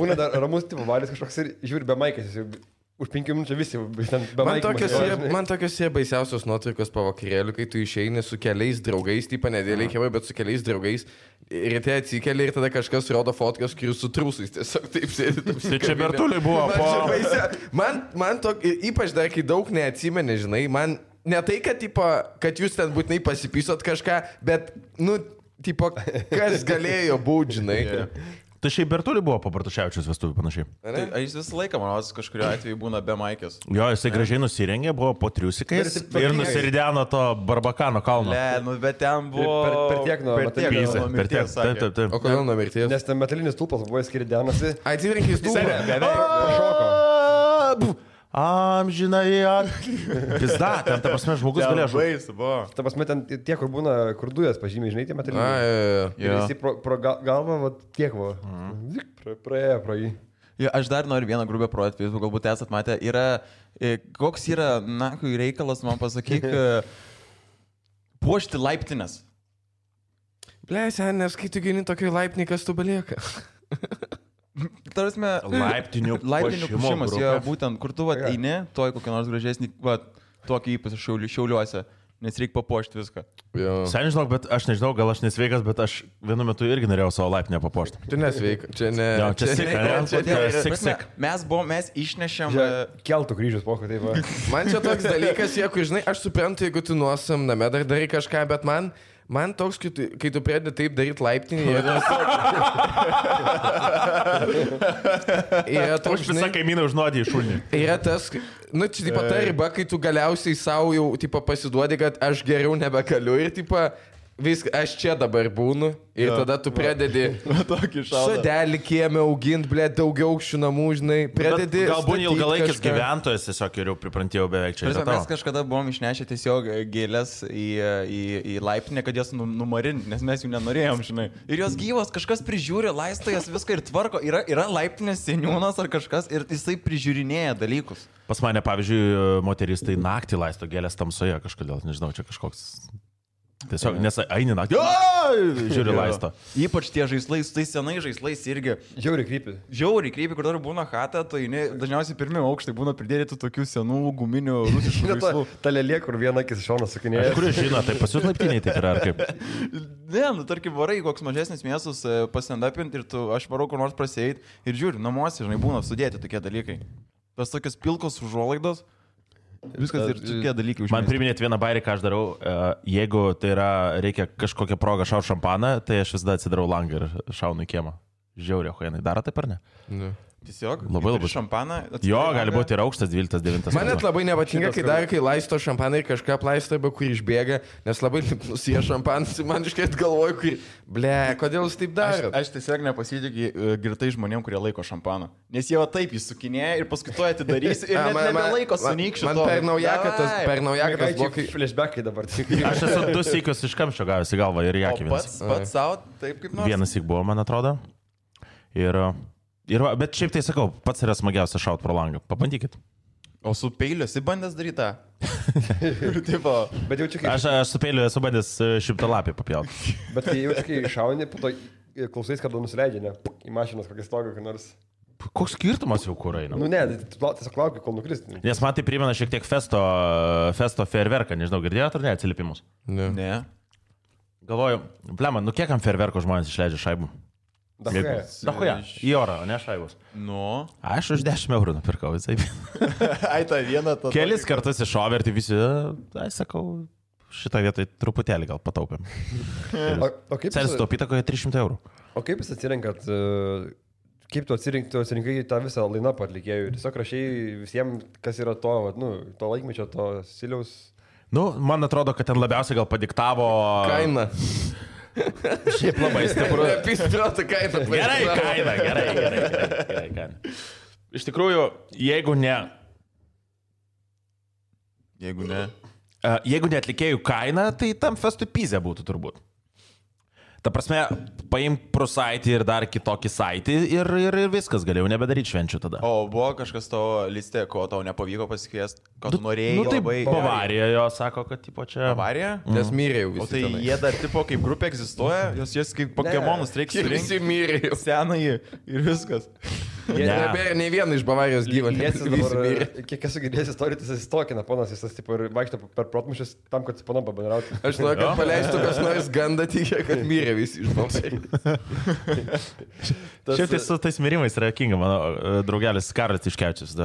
būna dar ramus, tipo, valis kažkoks ir žiūri be Maikės. Už 5 minučių visi ten be Maikės. Man tokios yra baisiausios nuotraukos po vakarėlių, kai tu išeini su keliais draugais, tipo nedėliai kėvai, bet su keliais draugais. Ir tai atsikeli ir tada kažkas rodo fotkas, kur su trūsais tiesiog taip sėdi. Tai čia Bertuliai buvo Man ypač dar, kai daug neatsimeni, žinai, man ne tai, kad jūs ten būtinai pasipysot kažką, bet, tipo, kas galėjo būti, žinai. Tai šiaip Bertuliai buvo po Bartuševičiaus vestuvių panašiai. Tai jis visą laiką, manau, kažkurio atveju būna be Maikės. Jo, jisai gražiai nusirengė, buvo po triusikais ir nusirideno to Barbakano kalno. Ne, bet ten buvo... Per tiek nuo mirties. Taip. O kodėl nuo mirties? Nes ten metalinis stulpas buvo skiridenasi. Atsirenkis stulpą. Šoko. Amžinai. Pizda, ten, ta prasme, žmogus galėjo žaisti. Ta prasme, ten tie, kur būna, kur dujas pažymiai, žinai, tie metaliniai. Ir jis pro galvą, va, tiek buvo. Praėjo pro jį. Ja, aš dar noriu vieną grubę projektą, jūs galbūt esat matę. Koks yra, reikalas, man pasakyk, puošti laiptinės. Blėsia, nes kai tu gini tokį laipnį, kas tu belieka. Tarasme, laiptinių puošimas, jo, būtent, kur tu eini, toj kokį nors gražesnį, tokį ypač šiauliuose, nes reikia papuošti viską. Sen žinok, bet aš nežinau, gal aš nesveikas, bet aš vienu metu irgi norėjau savo laiptinę papuošti. Tu nesveikas, čia ne. Sik. Mes išnešėm... Keltų kryžius, pokai, taip va. Man čia toks dalykas, jeigu, žinai, aš suprantu, jeigu tu nuosam name dar darai kažką, bet man toks, kai tu pradedi taip daryti laiptinį, yra toks, visą kaimyną užnuodį iš šunį. Yra tas, čia tipo ta riba, kai tu galiausiai savo jau tipo pasiduodi, kad aš geriau nebegaliu ir tipo viską, aš čia dabar būnu ir tada tu pradedi sodelį kiemę auginti, daugiau aukščių namų, žinai, pradedi... Galbūt ilgalaikis gyventojas tiesiog jau priprantėjau beveik čia. Mes kažkada buvom išnešę tiesiog gėlės į laiptinę, kad jas numarinti, nes mes jų nenorėjom, žinai. Ir jos gyvos, kažkas prižiūri, laisto jas viską ir tvarko. Yra laiptinės seniūnas ar kažkas ir jisai prižiūrinėja dalykus. Pas mane, pavyzdžiui, moteris tai naktį laisto gėlės tamsoje kažkodėl, nežinau, čia kažkoks... Tiesiog, nes eini naktį, žiūri laisto. Ypač tie žaislai, su tais senai žaislais irgi. Žiauriai krypi, kur dar būna chata, tai dažniausiai pirmie aukštai būna pridėti tokių senų guminių rusiškų žaislų. Ta lėlė, kur viena akis iš šono sukinėja. Kuris žino, tai pas jūs laiptiniai taip yra, ar kaip? Ne, nu tarkim, varai koks mažesnis miestas pasendapinti ir aš varau kur nors praseit ir žiūri, namuose, žinai, būna sudėti tokie dalykai. Tas tokios pilkos užuolaidos. Viskas ir tokie dalykai užmėsti. Man priminėt vieną bairį, ką aš darau, jeigu tai yra, reikia kažkokią progą šaut šampaną, tai aš visada atsidarau langą ir šaunu į kiemą. Žiauriai, huijanai, daro taip ar ne? Ne. Tiesiog labai šampaną. Jo, gali būti ir aukštas 12, 9. Man net labai nepatinka, kai dar kai laisto šampaną ir kažką plaisto, be kur išbėga, nes labai nusie šampanas ir man iškart galvoju, kur, ble, kodėl jūs taip daro? Aš tiesiog nepasitikiu girtai žmonėm, kurie laiko šampaną. Nes jie va taip jį sukinėja ir paskui to atidarys ir nebelaiko sunykščio. Man per naujaką tas blokai. Flashbackai dabar. Aš esu 2 sykius iš kamščio gavęs į galvą ir jakį vienas. Pats savo, taip kaip nors. Vienas syk buvo, man atrodo. Bet šiaip tai sakau, pats yra smagiausia šaut pro langą. Pabandykit. O su peiliu esi bandęs daryti tą? Bet jau čia kaip... Aš su peiliu esu bandęs 100 lapį papjauti. Bet kai jau kai šauni, po to klausais, kada nusileidžia, ne? Į mašinos kokį stogą, kai nors... Koks skirtumas jau kur eina? Nu ne, tiesiog laukiu, kol nukristi. Nes man tai primena šiek tiek festo fejerverką, nežinau, girdėjote ar ne atsiliepimus? Ne. Galvoju, blema, nu kiek ant fejerverko žmonės išleidžia šaibų? Dahuja, į orą, o ne šaibus. Nu. Aš už 10 eurų nupirkau, visai. Ai, tą vieną. Kelis kartus iššovė ir tai visi, sakau, šitą vietą truputėlį gal pataupėm. O kaip Celis taupyta kokie 300 eurų. O kaip jūs atsirenkat, kaip tu atsirinkai tą visą line-up atlikėjų? Tiesiog rašai visiems, kas yra to, to laikmečio, to stiliaus. Nu, man atrodo, kad ten labiausiai gal padiktavo... Kaina. Šiaip labai stipru. Pispirota kaina. Gerai, kaina. Iš tikrųjų, jeigu ne atlikėjų kaina, tai tam festui pizė būtų turbūt. Ta prasme, paim prosaitį ir dar kitokį saitį ir viskas, galėjau nebedaryti švenčių tada. O buvo kažkas tavo listė, ko tau nepavyko pasikviesti, ko tu norėjai? Nu tai labai... Bavarija jo sako, kad tipo čia... Bavarija? Nes mirė jau visi. O tai tenai. jie dar tipo kaip grupė egzistuoja, jos kaip Pokemonus reikia surinkti. Visi mirė jau. Senąjį ir viskas. Nebėra nei vieno iš Bavarijos gyvo. Kiek esu girdėjęs istorijų, jis įstokina ponas, jis tipo ir vaikšto per protmušius tam, kad su ponom pabendrauti. Aš noriu, kad paleistų kas nors gandą tikė, kad mirė visi iš Bavarijos. Šiaip tai su tais mirimais yra kinga, mano draugelis Karas Tiškevičius.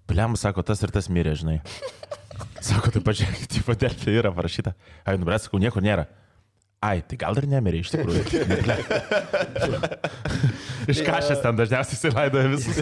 Bliam, sako, tas ir tas mirė, žinai. Sako, tai pažiūrėk, tipo Delfi yra parašyta. Ai, nubrės, sakau, nieko nėra. Ai, tai gal ir nemirė iš tikrųjų. Iškašęs ten dažniausiai įsilaidoja visus.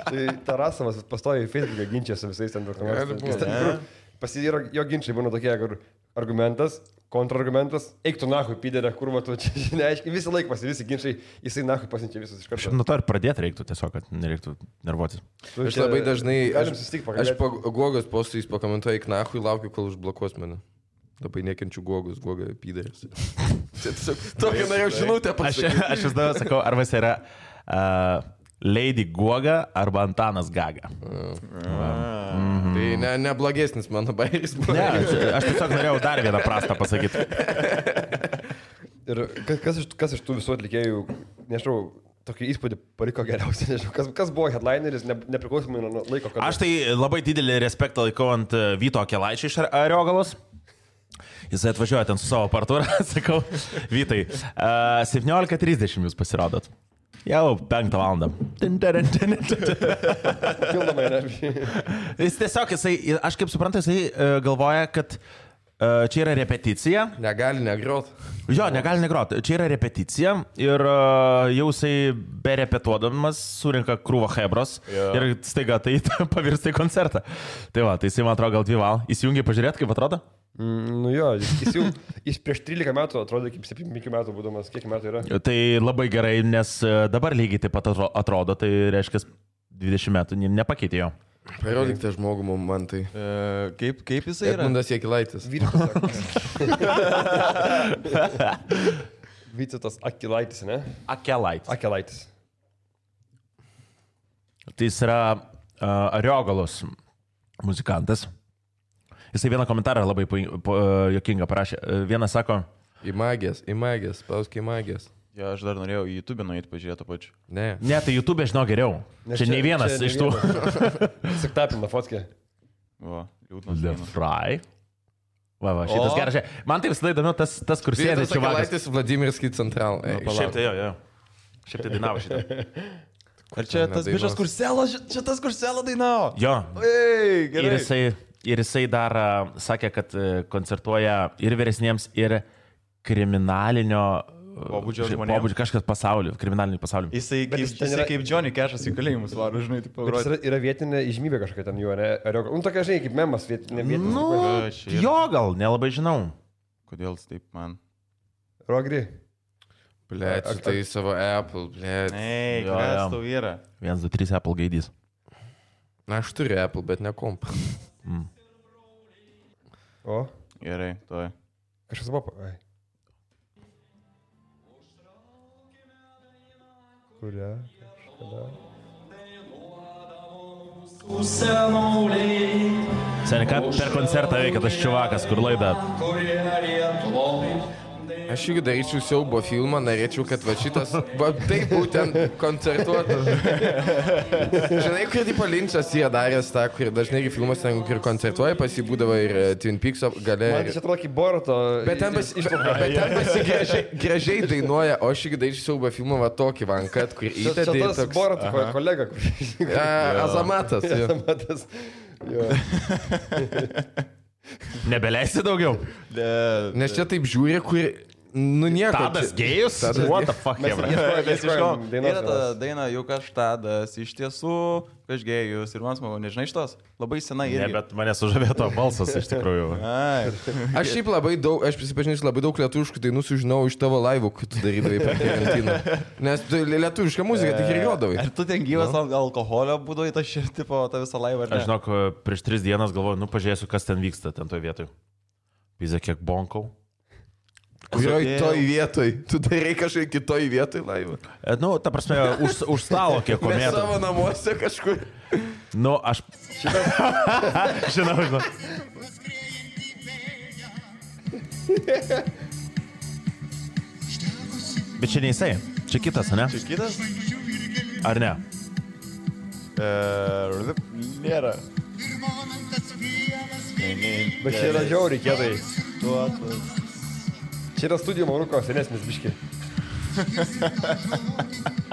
Tai Tarasovas pastoja į Facebooką ginčia su visais ten dokumentais. Pasivyro, jo ginčiai būna tokie, kur argumentas, kontrargumentas, eik tu nahui, piderė, kur va tu čia, neaiškiai, visą laiką visi ginčiai, jisai nahui pasinčia visus iš karto. Nuo to ir pradėti reiktų tiesiog, kad nereiktų nervuotis. Aš labai dažnai, aš po Gogos postais pakomentuoju, eik nahui, laukiu, kol užblokuos mane. Labai nekenčiu Gogus, Goga piderės. Tokia norėjau žinutę pasakyti. Aš vis dar sakau, arba jis yra Lady Goga arba Antanas Gaga. Tai neblogesnis mano bairis buvo. Ne, aš tiesiog norėjau dar vieną prastą pasakyti. Ir kas iš tų visų atlikėjų, nežinau, tokį įspūdį paliko geriausiai, nežinau, kas buvo headlineris, nepriklausomai nuo laiko. Aš tai labai didelį respektą laikau ant Vyto Akelaičio iš Ariogalos. Jisai atvažiuoja ten su savo partūra, sakau, Vytai, 17:30 jūs pasirodot. Jau 5 valandą. Pildomai energijai. Jis tiesiog, aš kaip suprantu, jisai galvoja, kad čia yra repeticija. Negali negrot. Jo, negali negrot. Čia yra repeticija ir jau jisai berepetuodamas surinka krūvą hebros ir staiga tai pavirsta į koncertą. Tai va, tai jisai man atrodo gal 2 valandas. Įsijungiai pažiūrėti, kaip atrodo? Nu jo, jis prieš 13 metų atrodo kaip 17 metų būdamas, kiek metų yra. Tai labai gerai, nes dabar lygiai taip pat atrodo, tai reiškia 20 metų nepakeitė jo. Parodyk tą žmogų man tai. Kaip jisai yra? Edmundas Jakilaitis. Vytautas Akilaitis, ne? Akelaitis. Tai jis yra Ariogalos muzikantas. Jisai vieną komentarą labai juokingą parašė. Vienas sako... Į magijas, pausk į magijas. Jo, aš dar norėjau į YouTube nueiti pažiūrėti pačiu. Ne, tai YouTube žinau geriau. Čia nei vienas iš tų. Tik tapina fotkė. O, liūdnas. The Fry. Va, šitas geras. Man tai visada įdomu tas kur sėdė čia vagas. Vietas Vladimirskis Central. Šiaip tai jo. Šiaip tai dainavo šitą. Ar čia tas bišas Kurselo dainavo? Jo. Ei, gerai. Ir jisai dar sakė, kad koncertuoja ir vyresniems, ir kriminalinio pobūdžio žmonėms. Kažkas pasaulio, kriminalinį pasaulį. Jisai kaip Johnny Cash'as į kalėjimus varo, žinai, taip pagroti. Yra vietinė įžymybė kažkokia ten jų, ne? Tokia, žinai, kaip memas vietinė. Jo, gal, nelabai žinau. Kodėl taip man? Rogri. Blet, tai savo Apple, blet. Ei, kas tau yra? 1, 2, 3 Apple gaidys. Na, aš turiu Apple, bet ne komp. O? Gerai, toj. Kažkas buvo... Kuria? Seniai, ką per koncertą veikia tas čiuvakas, kur laida? Aš irgi daryčiau siaubo filmą, norėčiau, kad va šitas, va taip būtent koncertuotų. Žinai, kur tipo Linčas yra daręs tą, kur dažnai ir filmas, kur koncertuoja, pasibūdavo ir Twin Peaks gale. Man čia atrodo kaip Boruto. Bet ten gražiai dainuoja, o aš irgi daryčiau siaubo filmą va tokį vankat, kur įtėdė. Čia tas Boruto kolega. Azamatas. Azamatas. Nebeleisi daugiau. Nes čia taip žiūri, kur... Nu nieko. Tadas gėjus? What the fuck, jebra? Yra ta daina, juk aš Tadas, iš tiesų, aš gėjus ir man smagu, nežinai šitos? Labai senai irgi. Ne, bet mane sužavėjo to balsas iš tikrųjų. Aš šiaip labai daug, aš prisipažinsiu, labai daug lietuviškų dainų sužinau iš tavo laivų, kai tu darydavai per karantiną. Nes lietuvišką muziką tik ir juodavai. Ar tu ten gyvas alkoholio būdavai tą visą laivą? Aš žinok, prieš 3 dienas galvoju, pažiūrėsiu, kas ten vyksta ten toj vietoj. Pizė, kiek bonkau. Kurioj toj vietoj? Tu darai kažkai kitoj vietoj laivą? Nu, ta prasme, už stalo kiek komėtų. Ne savo namuose kažkur. Nu, aš... Žinau. Bet čia ne jisai. Čia kitas, ne? Čia kitas? Ar ne? Nėra. Bet čia yra žiauriai kietai. Čia yra studijų Mauruko senesnis biški.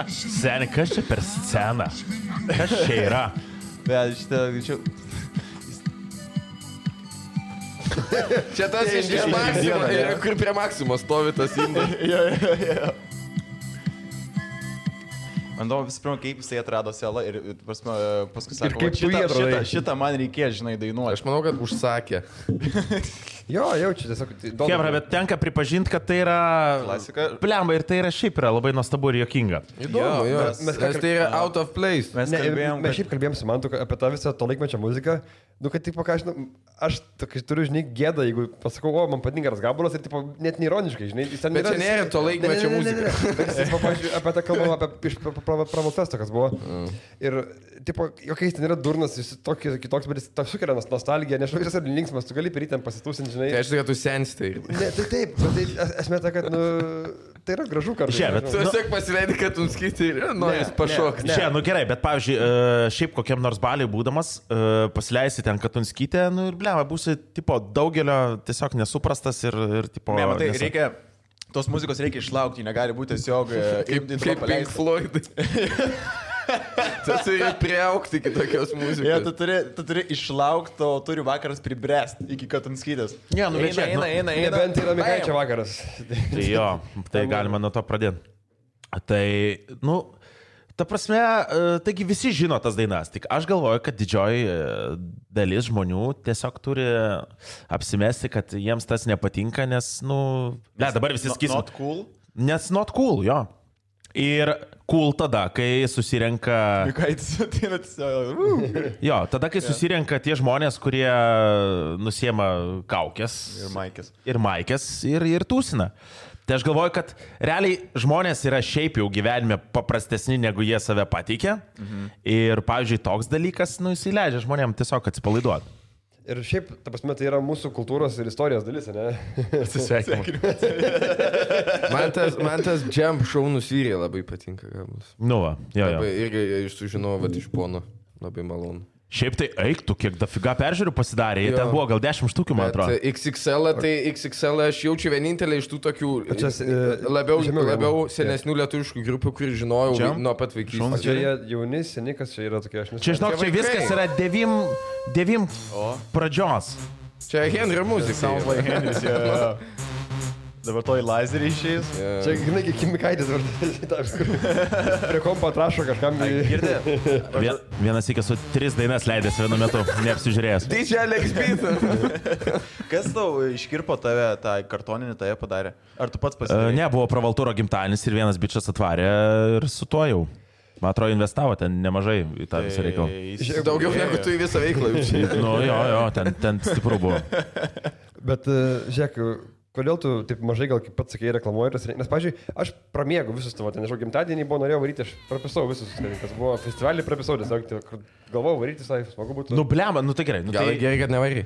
Seni, kas čia per sceną? Kas čia yra? Bet šitą... Čia tas iš Maksimo, kur prie Maksimo stovi tas indas. Man įdomu visų pirma, kaip jisai atrado selą ir paskui sako, kaip tu jį atradai? Šitą man reikės, žinai, dainuoti. Aš manau, kad užsakė. Jo, jaučiu, tiesiog... Kebra, bet tenka pripažinti, kad tai yra... Klasika. Plemba, ir tai yra šiaip yra labai nuostabu ir juokinga. Įdomu, jo. Nes tai yra out of place. Mes šiaip kalbėjom su Mantu apie tą visą to laikmečio muziką. Nu, kad, tipo, ką aš turiu, žinai, gėdą, jeigu pasakau, o, man patinka tas gabalas ir, tipo, net neironiškai, žinai. Bet čia nėra to laikmečio muzika. Bet jis, pavyzdžiui, apie tą kalbam, apie iš Pramotesto, kas buvo. Ir, tipo, jokiais ten yra durnas, jis kitoks, bet jis sukelia nostalgiją, nežinau, jis yra linksmas, tu gali per jį ten pasitūsinti, žinai. Tai aš tai, kad tu sensti. Ne, tai taip, bet esmė ta, kad, tai yra gražu kartu. Tu tiesiog pasileidai, kad tu skyti ir nori pašokti. Čia, nu gerai, bet pavyzdžiui, šiaip kokiam nors baliui būdamas, pasileisi ten Katunskytę, nu ir bleva, būsi, tipo, daugelio tiesiog nesuprastas ir tipo... Ne, matai, reikia, tos muzikos reikia išlaukti, negali būti tiesiog... Kaip Pink Floyd. Tu turi priaukti kitokios muzikos. Ja, tu turi išlaukti, o turi vakaras pribręsti iki Katunskytės. Ja, nu, eina. Nebent yra Mikaičio vakaras. Tai jo, tai galima nuo to pradėti. Tai, nu... Ta prasme, taigi visi žino tas dainas, tik aš galvoju, kad didžioji dalis žmonių tiesiog turi apsimesti, kad jiems tas nepatinka, nes, nu... Ne, dabar visi sakysim. Not cool? Nes not cool, jo. Ir cool tada, kai susirenka... Jo, tada, kai susirenka tie žmonės, kurie nusiema kaukės. Ir maikės. Ir tūsina. Tai aš galvoju, kad realiai žmonės yra šiaip jau gyvenime paprastesni, negu jie save pateikia. Ir, pavyzdžiui, toks dalykas, nu, jis įleidžia žmonėm tiesiog atsipalaiduoti. Ir šiaip, ta prasme, tai yra mūsų kultūros ir istorijos dalis, ne? Atsisveikinu. Man tas jump show nusvyrė labai patinka. Gabus. Nu va, jo. Labai, irgi sužinojau, kad iš pono labai malonu. Šiaip tai eiktų, kiek dafiga peržiūrų pasidarė, jie ten buvo gal 10 štukių, man atrodo. XXL aš jaučiu vienintelį iš tų tokių labiau senesnių lietuviškų grupių, kurį žinojau nuo pat vaikystės. O čia jie jauni, seni, kas čia yra tokie, aš nežinau. Čia, žinok, čia viskas yra 9 pradžios. Čia Henrio muzika. Sounds like Henris, jo. Dabar toj lazerį išėjus. Čia, žinai, kaip Kimikaitis prie kompo atrašo kažkam. Girdė? Vienas iki su 3 dainas leidęs vienu metu, neapsižiūrėjęs. DJ Alex Beat. Kas tau iškirpo tave, tą kartoninį tave padarė? Ar tu pats pasidarė? Ne, buvo Pravaltūro gimtadienis ir vienas bičias atvarė ir su tuo jau. Man atrodo, investavo ten nemažai į tą visą reikalą. Daugiau negu tu į visą veiklą. Nu, jo, ten stipru buvo. Bet, žiūrėk, kodėl tu taip mažai, gal kaip pats sakei, reklamuoji? Nes, pavyzdžiui, aš pramiegu visus tavo, nežinau, gimtadienį buvo, norėjau varyti, aš prapisau visus, kas buvo festivalį, prapisau, tiesiog galvojau varyti, smagu būtų. Nu, blema, nu tai gerai. Gal gerai, kad nevarai.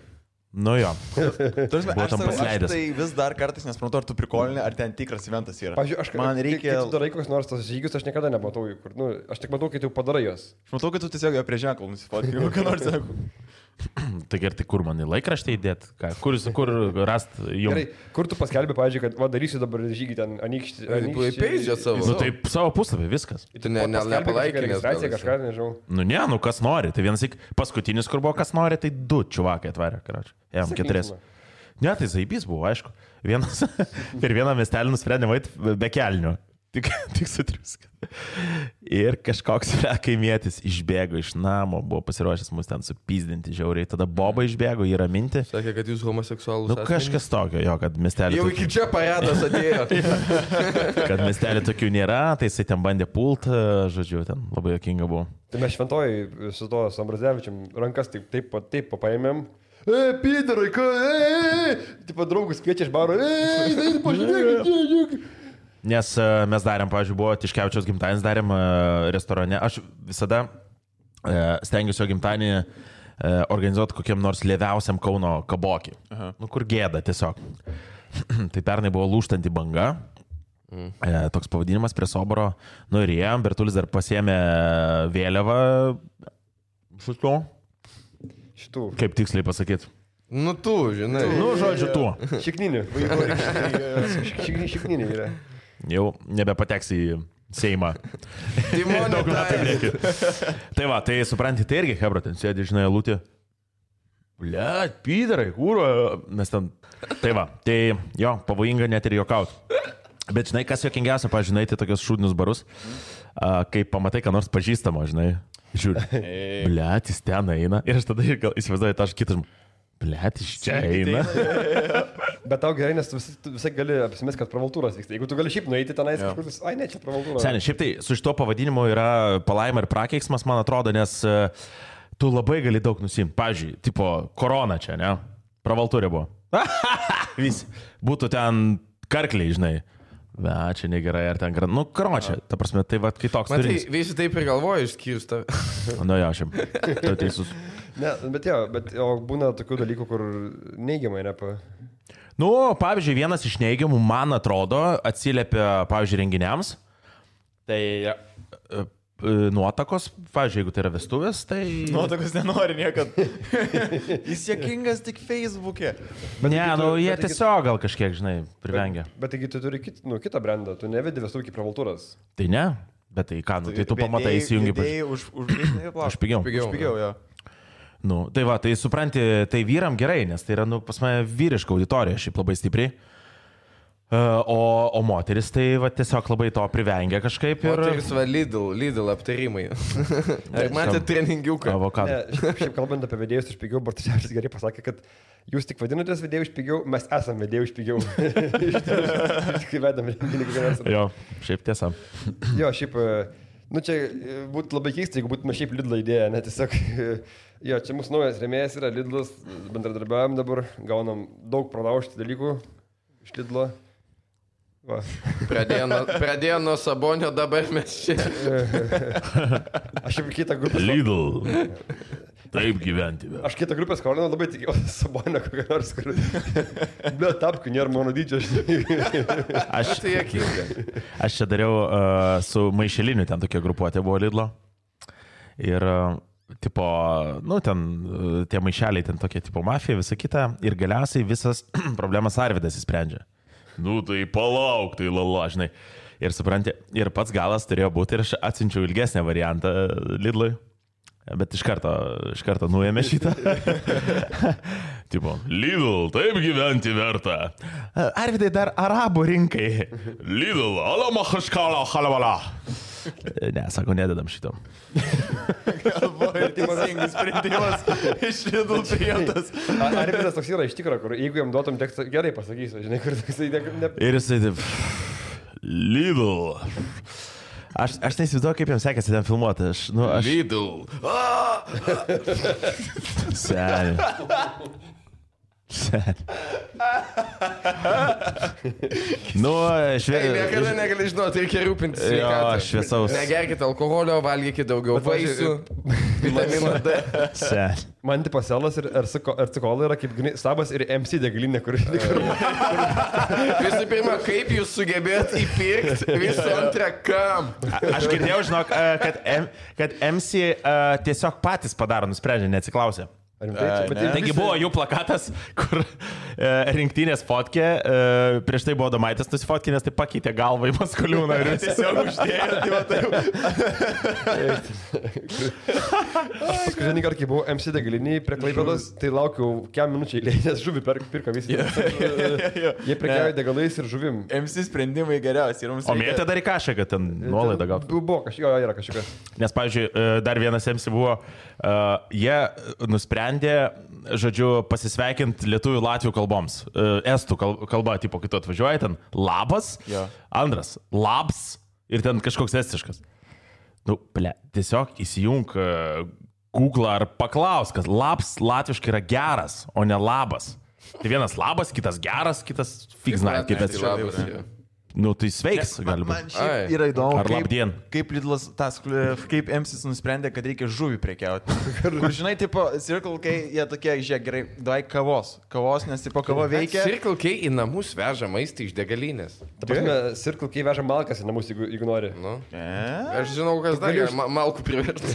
Nu jo. Aš tai vis dar kartais nesuprantu, ar tu prikolinė, ar ten tikras eventas yra. Pavyzdžiui, man reikia... Kai tu darai kokius nors tos žygius, aš niekada nematau jų. Aš tik matau, kai tu padarai juos. Aš matau, kad tu tiesiog jo prie ženklų nusifotkai, ką nors sako. Tai gerai, tai kur man į laikraštį įdėt? Kur rast jums? Gerai, kur tu paskelbė, pavyzdžiui, kad darysiu dabar žygį ten anykštį. Peidžia savo. Nu tai savo puslapį, viskas. Tu nepalaikai registraciją kažką, nežinau. Nu ne, kas nori. Tai vienas paskutinis, kur buvo kas nori, tai 2 čuvakai atvarė, karoči. Jam 4. Ne, tai zaibys buvo, aišku. Vienas per vieną miestelį nusprendė vaiti be kelnių. Tik sutriuska. Ir kažkoks kaimietis išbėgo iš namo, buvo pasiruošęs mus ten supyzdinti žiauriai. Tada Boba išbėgo jį raminti. Sakė, kad jūs homoseksualus. Nu kažkas tokio, jo, kad miestelį... Jau iki čia paradas atėjo. Kad miestelį tokių nėra, tai jisai ten bandė pult, žodžiu, ten labai jokinga buvo. Tai mes šventojai su to Ambrazevičium rankas taip paėmėm. Pidarai, tipo draugus kviečia iš baro. Pažiūrėk. Nes mes darėm, pavyzdžiui, buvo Tiškevičiaus gimtadienis, darėm restorane. Aš visada stengiuosi jo gimtadienį organizuoti kokiam nors lėviausiam Kauno kabokį. Nu, kur gėda tiesiog. Tai pernai buvo Lūžtanti banga. Toks pavadinimas prie Soboro. Nu ir jiem, Bertulis dar pasiėmė vėliavą. Šitų. Kaip tiksliai pasakyti? Nu tu, žinai. Nu, žodžiu, tu. Šikninį. Šikninį yra. Jau nebepateks į Seimą. Daug metų lieki. Tai va, tai supranti, tai irgi Hebra ten sėdi, žinai, lūtė. Blet, pydarai, kūro. Mes ten... Tai va, tai jo, pavojinga net ir juokaut. Bet žinai, kas juokingiausia, pažinai, tai tokios šūdinius barus, kai pamatai, ką nors pažįstamo, žinai. Žiūrė, blet, jis ten eina. Ir aš tada įsivaizduoju tą kitą žmogų. Blet, iš čia eina. Bet tau gerai, nes tu visai gali apsimės, kad pravaltūros vyksta. Jeigu tu gali šiaip nueiti tenais kažkur, ai ne, čia pravaltūros. Seniai, šiaip tai su šito pavadinimu yra palaima ir prakeiksmas, man atrodo, nes tu labai gali daug nusimti. Pavyzdžiui, tipo korona čia, ne? Pravaltūrė buvo. Visi. Būtų ten karkliai, žinai. Be, čia negerai, ar ten... Nu, karočią, ta prasme, tai va, kai toks turinys. Matai, visi taip ir galvoja išskyrus tą. Nu, jo, šiam. Tu teisus. Ne, bet būna tokių dalykų, kur neigiamai nepa... Nu, pavyzdžiui, vienas iš neigiamų, man atrodo, atsiliepia, pavyzdžiui, renginiams. Tai nuotakos, pavyzdžiui, jeigu tai yra vestuvės, tai... Nuotakos nenori niekad. Jis juokingas tik Facebook'e. Ne, nu, jie tiesiog gal kažkiek, žinai, privengia. Bet taigi tu turi kitą brandą, tu nevedi vestuvų kaip pravaltūras. Tai ne, bet tai ką, nu, tai tu pamatai įsijungi. Už pigiau. Už pigiau, jo. Nu, tai va, tai supranti, tai vyram gerai, nes tai yra, nu, pas mane vyriška auditorija, šiaip labai stipriai. O moteris tai va, tiesiog labai to privengia kažkaip. Ir... Moteris va Lidl aptarimai. Ar matėte treningiuką? Avokado. Šiaip kalbant apie vedėjus iš pigiau, Bartusevičius gerai pasakė, kad jūs tik vadinatės vedėjų iš pigiau, mes esame vedėjų iš pigiau. Kai vedam renginį kiekvienas. Jo, šiaip tiesa. Jo, šiaip, nu čia būtų labai keista, jeigu būtume šiaip Lidl idėja, ne tiesiog... Jo, čia mūsų naujas rėmėjas yra Lidlas, bendradarbiavim dabar, gaunam daug pralaužti dalykų iš Lidlo. Va. Pradėjo nuo Sabonio, dabar mes čia. Aš jau kitą grupę. Lidl. taip gyventi. Aš kitą grupę skolinau, labai tikėjausi Sabonio kokią nors, kur... Ble, tapkių nėra mano dydžio, Aš tai jokinga. Aš čia dariau su Maišeliniu, ten tokia grupuotė buvo Lidlo. Ir, tipo, nu, ten tie maišeliai, ten tokie, tipo, mafija, visa kita. Ir galiausiai visas problemas Arvidas įsprendžia. Nu, tai palauk, tai lala, žinai. Ir supranti, ir pats galas turėjo būti ir aš atsinčiau ilgesnę variantą Lidlui. Bet iš karto nuėmė šitą. Tipo, Lidl, taip gyventi verta. Arvidai dar arabų rinkai. Lidl, alamahashkala halavala. Ne, sako, nededam šito. Galvoju, teisingas sprendimas iš Lidl priimtas. Arvidas toks yra iš tikro, kur jeigu jam duotum tekstą, gerai pasakysiu, žinai, kur toksai... Ir jisai taip... Lidl. Aš neįsivaizduoju, kaip jam sekėsi ten filmuoti. Lidl. Seniai. Nu, Niekada negali žinoti, reikia rūpintis sveikatą. Jo, šviesaus. Negerkite alkoholio, valgykite daugiau vaisių, vitamino D. Seniai. Man tipo Selas ir Ercikolai yra kaip Sabas ir MC degalinė, kur... Visų pirma, kaip jūs sugebėt įpirkti, visų antrą kam. Aš girdėjau, žinok, kad MC tiesiog patys padaro, nusprendžia, neatsiklausė. Taigi buvo jų plakatas, kur rinktinės fotkė, prieš tai buvo Domaitis nusifotkė, nes tai pakeitė galvą į Maskoliūną ir tiesiog uždėjo. Aš paskutinį kartą, kai buvau MC degaliniai prie Klaipėdos, tai laukiau kiam minučiai, nes žuvį pirka visi. Jie prekiauja degalais ir žuvim. MC sprendimai geriausi. O mėtė dar į kažką, kad ten nuolaidą gautų. Buvo kažkas, yra kažkas. Nes, pavyzdžiui, dar vienas MC buvo, jie nusprendė, žodžiu, pasisveikinti lietuvių latvių kalboms. Estų kalba, tipo, kai tu atvažiuoji, ten labas, antras labs ir ten kažkoks estiškas. Nu, ble, tiesiog įsijung Google ar paklaus, kad labs latviškai yra geras, o ne labas. Tai vienas labas, kitas geras, kitas fiksnai, kaip estiškas. Nu, tai sveiks, gali būti. Man šiaip yra įdomu, Ar labdien. kaip Lidlas, kaip MCs nusprendė, kad reikia žuvį prekiauti. Kur, žinai, tipo, Circle K, jie tokie, žiūrėk, gerai, davai kavos, nes, tipo, kava veikia. Circle K į namus veža maistą iš degalinės. Ta prasme, Circle K veža malkas į namus, jeigu nori. Nu. Aš žinau, kas dar malkų priverti.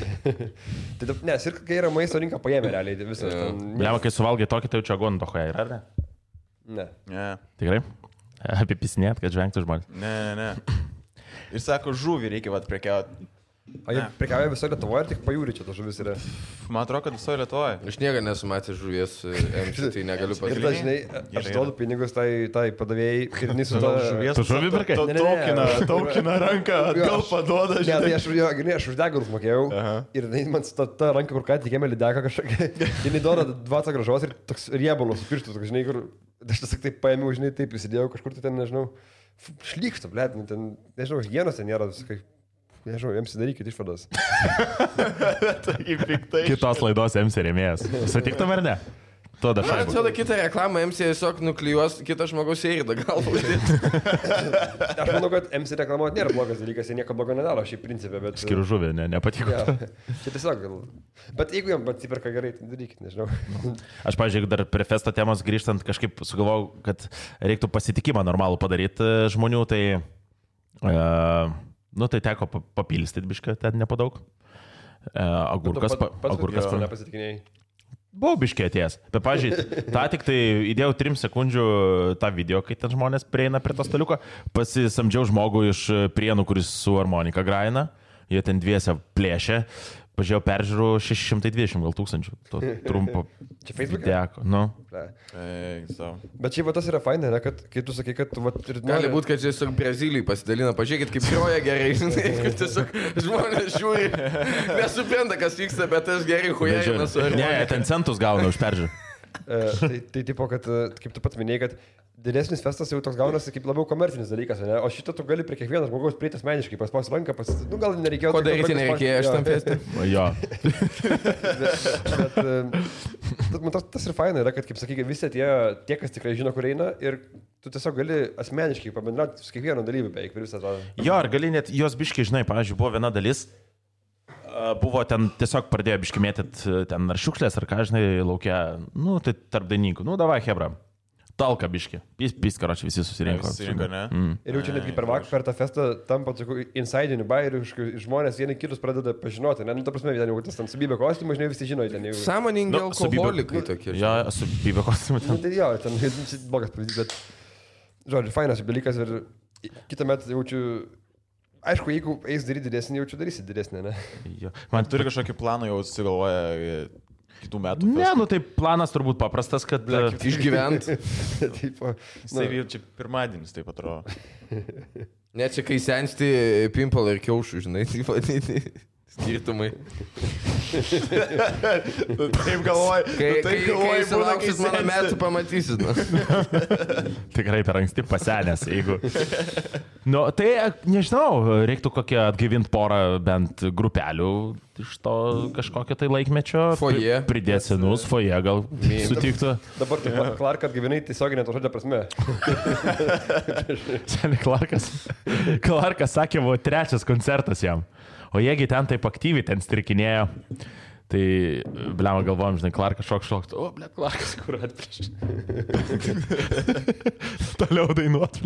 Tai, ne, Circle K yra maisto rinka paėmė realiai visą. Lema, kai suvalgai tokį, tai jau čia agontohoje yra, ar ne? Ne. Tikrai? Apipisinėt, kad žvengtų žmonės. Ne. Ir sako, žuvį reikia prekiauti. O jie prekiauja visoje Lietuvoje ir tik pajūri čia to žuvis yra. Man atrodo, kad visoje Lietuvoje. Aš niekada nesu matęs žuvies MC, tai negaliu Ir pasakyti. dažnai aš duodu pinigus tai padavėjai ir jis su to žuvies. Tu žuvį pirkai? Taukina ranką, atgal paduoda, Ne, tai aš už degalus mokėjau ir man ta ranka, kur ką tikėjome lydeka kažkokia, jinai duoda 20 gražos ir toks riebalus pirštus, žinai, kur aš tiesiog taip paėmiau, žinai, taip įsidėjau kažkur tai ten, nežinau, šlykšta, blėt, ten, nežinau, higienos ten nėra, visiškai, nežinau, jiems darykit išvadas. Kitos laidos MC rėmėjas. Sutiktum ar ne? Man atrodo, kitą reklamą MC tiesiog nuklijuos kitą žmogaus eiridą galvą. Aš manau, kad MC reklamuoti nėra blogas dalykas, jie nieko blogo nedaro šį principę, bet... Skiriu žuvį, nepatiko. Ja, čia tiesiog gal... Bet jeigu jam atsiperka gerai, tai darykit, nežinau. Aš, pavyzdžiui, dar prie festo temos grįžtant, kažkaip sugalvojau, kad reiktų pasitikimą normalų padaryti žmonių, tai... Nu, tai teko papilstyti bišką, ten nepadaug. Agurkas nepasitikinėjai. Buvau biškiai atėjęs. Bet, pavyzdžiui, tą tik tai įdėjau 3 sekundžių tą video, kai ten žmonės prieina prie to staliuko, pasisamdžiau žmogų iš Prienų, kuris su harmonika graina, jie ten dviese plėšė, pažiūrėjau peržiūrų 620 gal tūkstančių. To trumpo. Čia Facebook'e? Deko, nu. Bet šiaip tas yra faina, ne, kad kai tu sakai, kad tu... Gali būti, kad tiesiog Brazilijai pasidalina, pažiūrėkit, kaip groja gerai, žinai, kad tiesiog žmonės žiūri, nesupranta, kas vyksta, bet aš gerai huijai nesu. Ne, ten centus gauna už peržiūrų. Tai tipo, kad, kaip tu pats minėjai, kad didesnis festas jau toks gaunasi kaip labiau komercinis dalykas, ne? O šitą tu gali prie kiekvieno žmogaus prieiti asmeniškai, paspaus ranką, nu gal nereikėjo... Ko daryti nereikėjo aš tam festui? Jo. Bet man tas ir faina yra, kad, kaip sakai, visi tie, kas tikrai žino, kur eina ir tu tiesiog gali asmeniškai pabendrauti su kiekvienu dalyviu beveik per visą tą... Jo, ar gali net jos biškiai, žinai, pavyzdžiui, buvo viena dalis, Buvo ten tiesiog pradėjo biškimėtit ten ar šiukšlės, ar ką, žinai, laukia, nu, tai tarp dainininkų. Nu, davai, hebra. Talka biški. Piskaročiai visi susirinko. Ne? Ir jau čia netgi per tą festą tampa tokių insidinių bairių, žmonės vieni kitus pradeda pažinoti. Ne, nu, ta prasme, ten jau tas ten subybė kostiumą, žinai, visi žino, ten jau. Sąmoningi alkoholikai tokie. Jo, subybė kostiumą. Nu, tai jo, ten blogas pavyzdys, bet, žodžiu, fainas dalykas ir kitą metą jaučiu, aišku, jeigu eis daryti didesnį, jaučiu darysi didesnį, ne? Jo. Man turi kažkokį planą jau susigalvoja kitų metų. Ne, nu tai planas turbūt paprastas, kad Išgyvent. Jisai ir čia pirmadienis, taip atrodo. Ne, čia kai sensti pimpalą ir kiaušų, žinai, taip vadinti. Skirtumai. Taip galvoji. Kai sulauksit mano metų, pamatysit. tikrai per anksti pasenęs, jeigu. Nu, tai, nežinau, reiktų kokią atgaivinti porą bent grupelių iš to kažkokio tai laikmečio. Foje. Pridėti senus, foje gal sutiktų. Dabar tu Clark atgyvenai tiesioginė to žodžio prasme. Seniai Clarkas sakė, buvo 3 koncertas jam. O jiegi ten taip aktyviai ten strikinėjo. Tai, blema, galvojom, žinai, Clarkas šok. O, ble, Clarkas, kur atprieš. Toliau dainuot.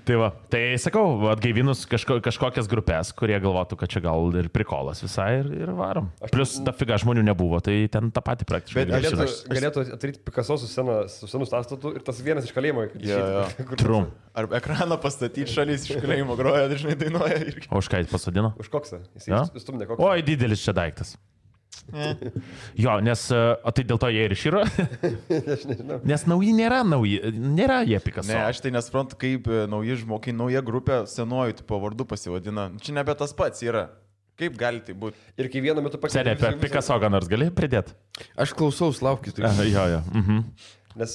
Tai va, tai sakau, atgaivinus kažkokias grupės, kurie galvotų, kad čia gal ir prikolas visai ir varom. Plus, ta figa žmonių nebuvo, tai ten tą patį praktiškai. Bet galėtų atryti Picasso su senu stastatu ir tas vienas iš kalėjimo. Trum. Ar ekraną pastatyti šalis iš kalėjimo groja, dažnai dainuoja. O už ką jis pasodino? Už koksą. Jis stumdė koksą. Oi, didelis čia daiktas. Jo, nes, o tai dėl to jie ir išyro? Aš nežinau. Nes nėra jie Picasso. Ne, aš tai nesuprantu, kaip nauji žmogiai, nauja grupė senuoju tipo vardu pasivadina. Čia nebe tas pats yra. Kaip gali tai būti? Ir kai vienu metu Senė, apie Picasso ką nors gali pridėti? Aš klausaus, laukit. Jo. Nes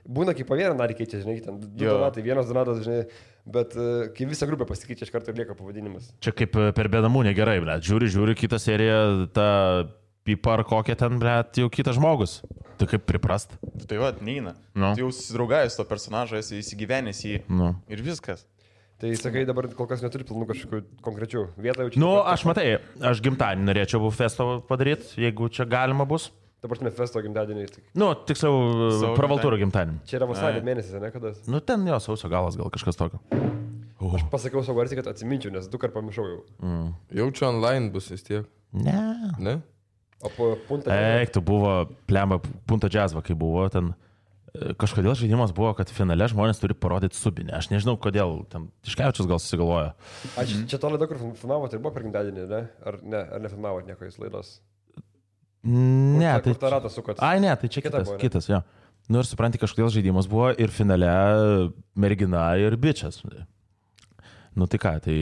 būna kaip po vieną narį keičia, žinai, ten 2 donatai, 1 donatas, žinai, bet kai visa grupė pasikeičia, iš karto ir lieka pavadinimas. Čia kaip per bėdamų negerai, ble. Žiūri kitą seriją, tą pipa ar kokią ten, ble, jau kitas žmogus. Tai kaip priprast? Tai va, neina. Nu. Tai jau susidraugavęs to personažą, esi įsigyvenęs į jį. Nu. Ir viskas. Tai sakai, dabar kol kas neturi planų kažkokių konkrečių vietą. Nu, aš matai, aš gimtadienį norėčiau festo padaryti, jeigu čia galima bus. Dabar turime festo gimtadienį. Nu, tiksliau, pravaltūro gimtadienį. Čia yra vasario mėnesis, ne kada? Nu, ten jo, sausio galas gal kažkas tokio. Aš pasakiau savo garsiai, kad atsiminčiau, nes 2 kartus pamiršau jau. Jaučiu online bus vis tiek. Ne? O po punta... Eik, tu buvo, plemba, punta džiazva, kai buvo ten. Kažkodėl žaidimas buvo, kad finale žmonės turi parodyti subinę. Aš nežinau, kodėl. Ten Tiškevičius gal susigalvojo. Čia to laida, kur filmavote, ir buvo per gimtadienį, ne? Ar nefilmavote nieko jūs laidos? Ne, tai... Kur tą ratą sukot? Ai, ne, tai čia kitas, jo. Nu ir supranti, kažkodėl žaidimas buvo ir finale mergina ir bičias. Nu tai ką, tai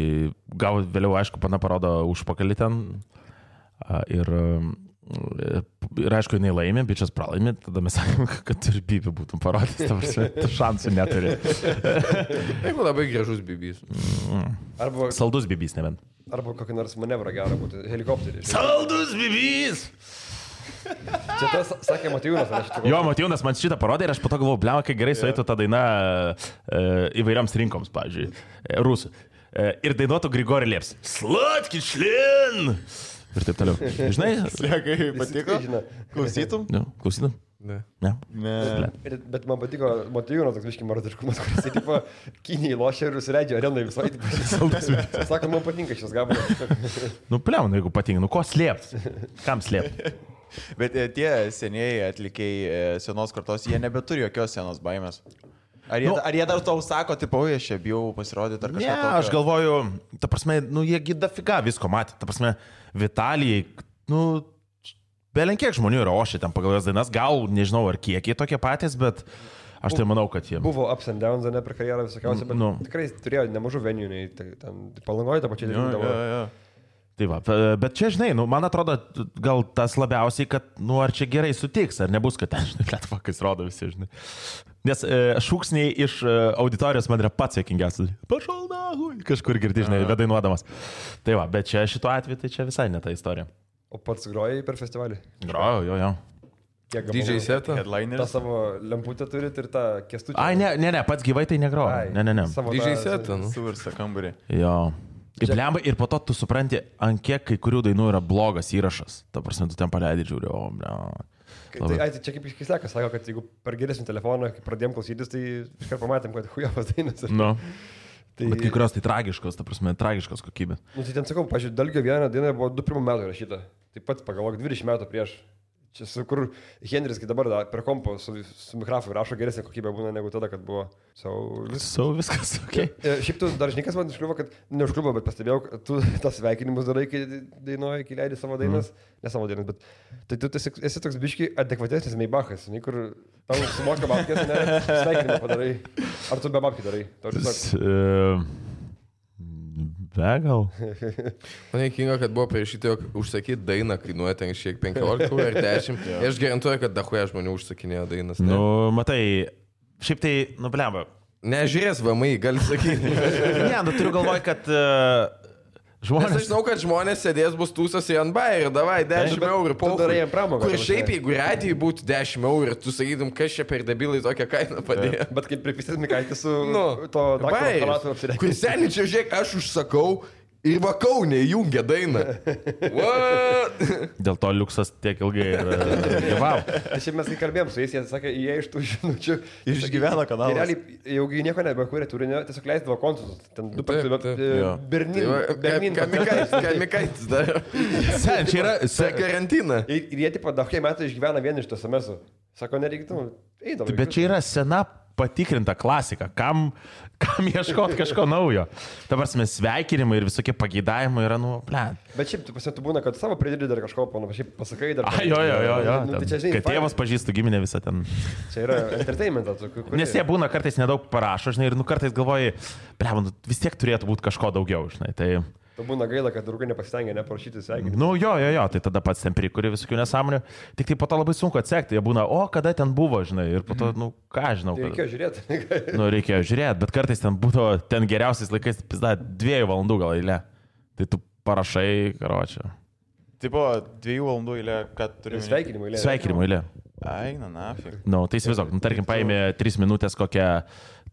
gal vėliau, aišku, pana parodo užpakalį ten ir aišku, jinai laimė, bičias pralaimė, tada mes sakėm, kad ir bibį būtum parodęs, ta šansų neturi. Jeigu labai gražus bibys. Arba... Saldus bibys, nebent. Arba kokį nors manevrą gerą būtų, helikopterį. Saldus bibys! Čia tas sakė Matijūnas, ar aš čia... Jo, Matijūnas man šitą parodė ir aš po to galvoju, blema, kai gerai sueitų tą dainą įvairiams rinkoms, pavyzdžiui, rusų. Ir dainuotų Grigori Lieps. Slatki šlin! Ir taip toliau. Žinai? Slėkai, patiko? Klausytum? Ne, klausytum? Ne. Bet man patiko Matijūnas toks viškai marodiškumas, kuris tipo Kinijai lošia ir užsileidžia arenai visai. Sako, man patinka šis gabalas. Nu, pliauna, jeigu patinka. Nu, ko slėpti? Kam slėpti? Bet tie senieji atlikėjai senos kartos, jie nebeturi jokios senos baimės. Ar jie dar tau sako, tipo, aš čia bijau pasirodyti ar kažką? Ne, aš galvoju, ta prasme, nu, jie gida figa visko matė. Ta prasme, Vitalijai, nu, belenkiek žmonių yra ošė ten pagal jos dainas. Gal, nežinau, ar kiekiai tokie patys, bet aš tai manau, kad jie... Buvo ups and downs, ne, per karjerą visokiausią, bet tikrai turėjo nemažų venijų, ten Palangoje tą pačią dainą. Tai va, bet čia, žinai, nu, man atrodo, gal tas labiausiai, kad, nu, ar čia gerai sutiks, ar nebus, kad ten, žinai, lietvakas rodo visi, žinai. Nes šūksniai iš auditorijos man yra pats jokingiausias. Pašal nahui, kažkur girdi, žinai, vedainuodamas. Tai va, bet čia šituo atveju, tai čia visai ne ta istorija. O pats grojai per festivalį? Grojau, jo. DJ setą? Ta savo lemputę turit ir tą kestučią? Ai, ne, pats gyvai tai negrojau. Ne. DJ setą, nu. Suvirsta kambarį. Jo. Ir po to tu supranti, ant kiek kai kurių dainų yra blogas įrašas. Ta prasme, tu ten paleidai, žiūri, Tai čia kaip iškislekas sako, kad jeigu per geresnį telefoną, kai pradėjom klausytis, tai iškart pamatėm, kad hujavas dainas. Nu. Tai... Bet kai kurios tai tragiškos, ta prasme, tragiškos kokybės. Nu, tai ten sakau, pažiūrėjau, Dalgio vieną dainą buvo 21 metų rašyta. Taip pat pagalvok, 20 metų prieš. Čia su kur Henris, kai dabar per kompo su mikrofonu rašo geresnė kokybė būna negu tada, kad buvo. Viskas, okei. Šiaip tu dar žinikas man užkliuvo, kad neužkliuvo, bet pastebėjau, kad tu tas sveikinimus darai, kai dainuoji, kai leidai savo dainas. Ne savo dainas, bet tai tu esi toks biški adekvatesnis Maybachas, kur tau sumoka babkės, ne, sveikinimą padarai. Ar tu be babkių darai? Gal. Man įkinga, kad buvo parašyti, jog užsakyti dainą kainuoja ten šiek 15 ar 10. Aš garantuoju, kad dahuoja žmonių užsakinėjo dainas. Ne? Nu, matai, šiaip tai, blemba. Nežiūrės VMI, gali sakyti. Ne, turiu galvoj, kad žmonės... Nes aš žinau, kad žmonės sėdės bus tūsas į Anbai ir davai 10 eurų po pramogą. Kur šiaip, jeigu radijai būtų 10 eurų ir tu sakytum, kas čia per debilai tokią kainą padėjo. Bet kaip pripistėt Mikaitį su to Bairis, kur seniai čia žiūrėk, aš užsakau ir Kaune įjungia dainą. What? Dėl to liuksas tiek ilgai gyvavo. Šiaip mes kai kalbėjom su jais, jie sakė, jie iš tų žinučių išgyvena kanalą. Realiai, jau nieko nebekūrė turinio, tiesiog leisdavo kontus. Ten du Kamikaitis dar. Sen, čia yra karantina. Ir jie tipo daugai metų išgyvena vien iš tos SMS-ų. Sako, nereiktų, eidavo. Bet čia yra sena patikrinta klasika. Kam ieškoti kažko naujo? Dabar mes sveikinimai ir visokie pageidavimai yra, Bet šiaip, tu būna, kad savo pridedi dar kažko, šiaip pasakai dar. Jo. Kad tėvas pažįstų giminę visą ten. Čia yra entertainmentas. Nes jie būna kartais nedaug parašo, ir kartais galvoji, vis tiek turėtų būti kažko daugiau, Tai... Tu būna gaila, kad draugai nepasitengia neparašyti sveikinimų. Tai tada pats ten prikuri visokių nesąmonių. Tik tai po to labai sunku atsekti. Jie būna, kada ten buvo, ir po to, ką žinau. Reikėjo žiūrėti. Reikėjo žiūrėti, bet kartais ten būdavo, ten geriausiais laikais, 2 valandų gal eilė. Tai tu parašai, karočią. Tai buvo 2 valandų eilė, kad turi... Sveikinimų eilė. Ai, nafig. Tai įsivaizduok, tarkim, paėmė 3 minutės kokią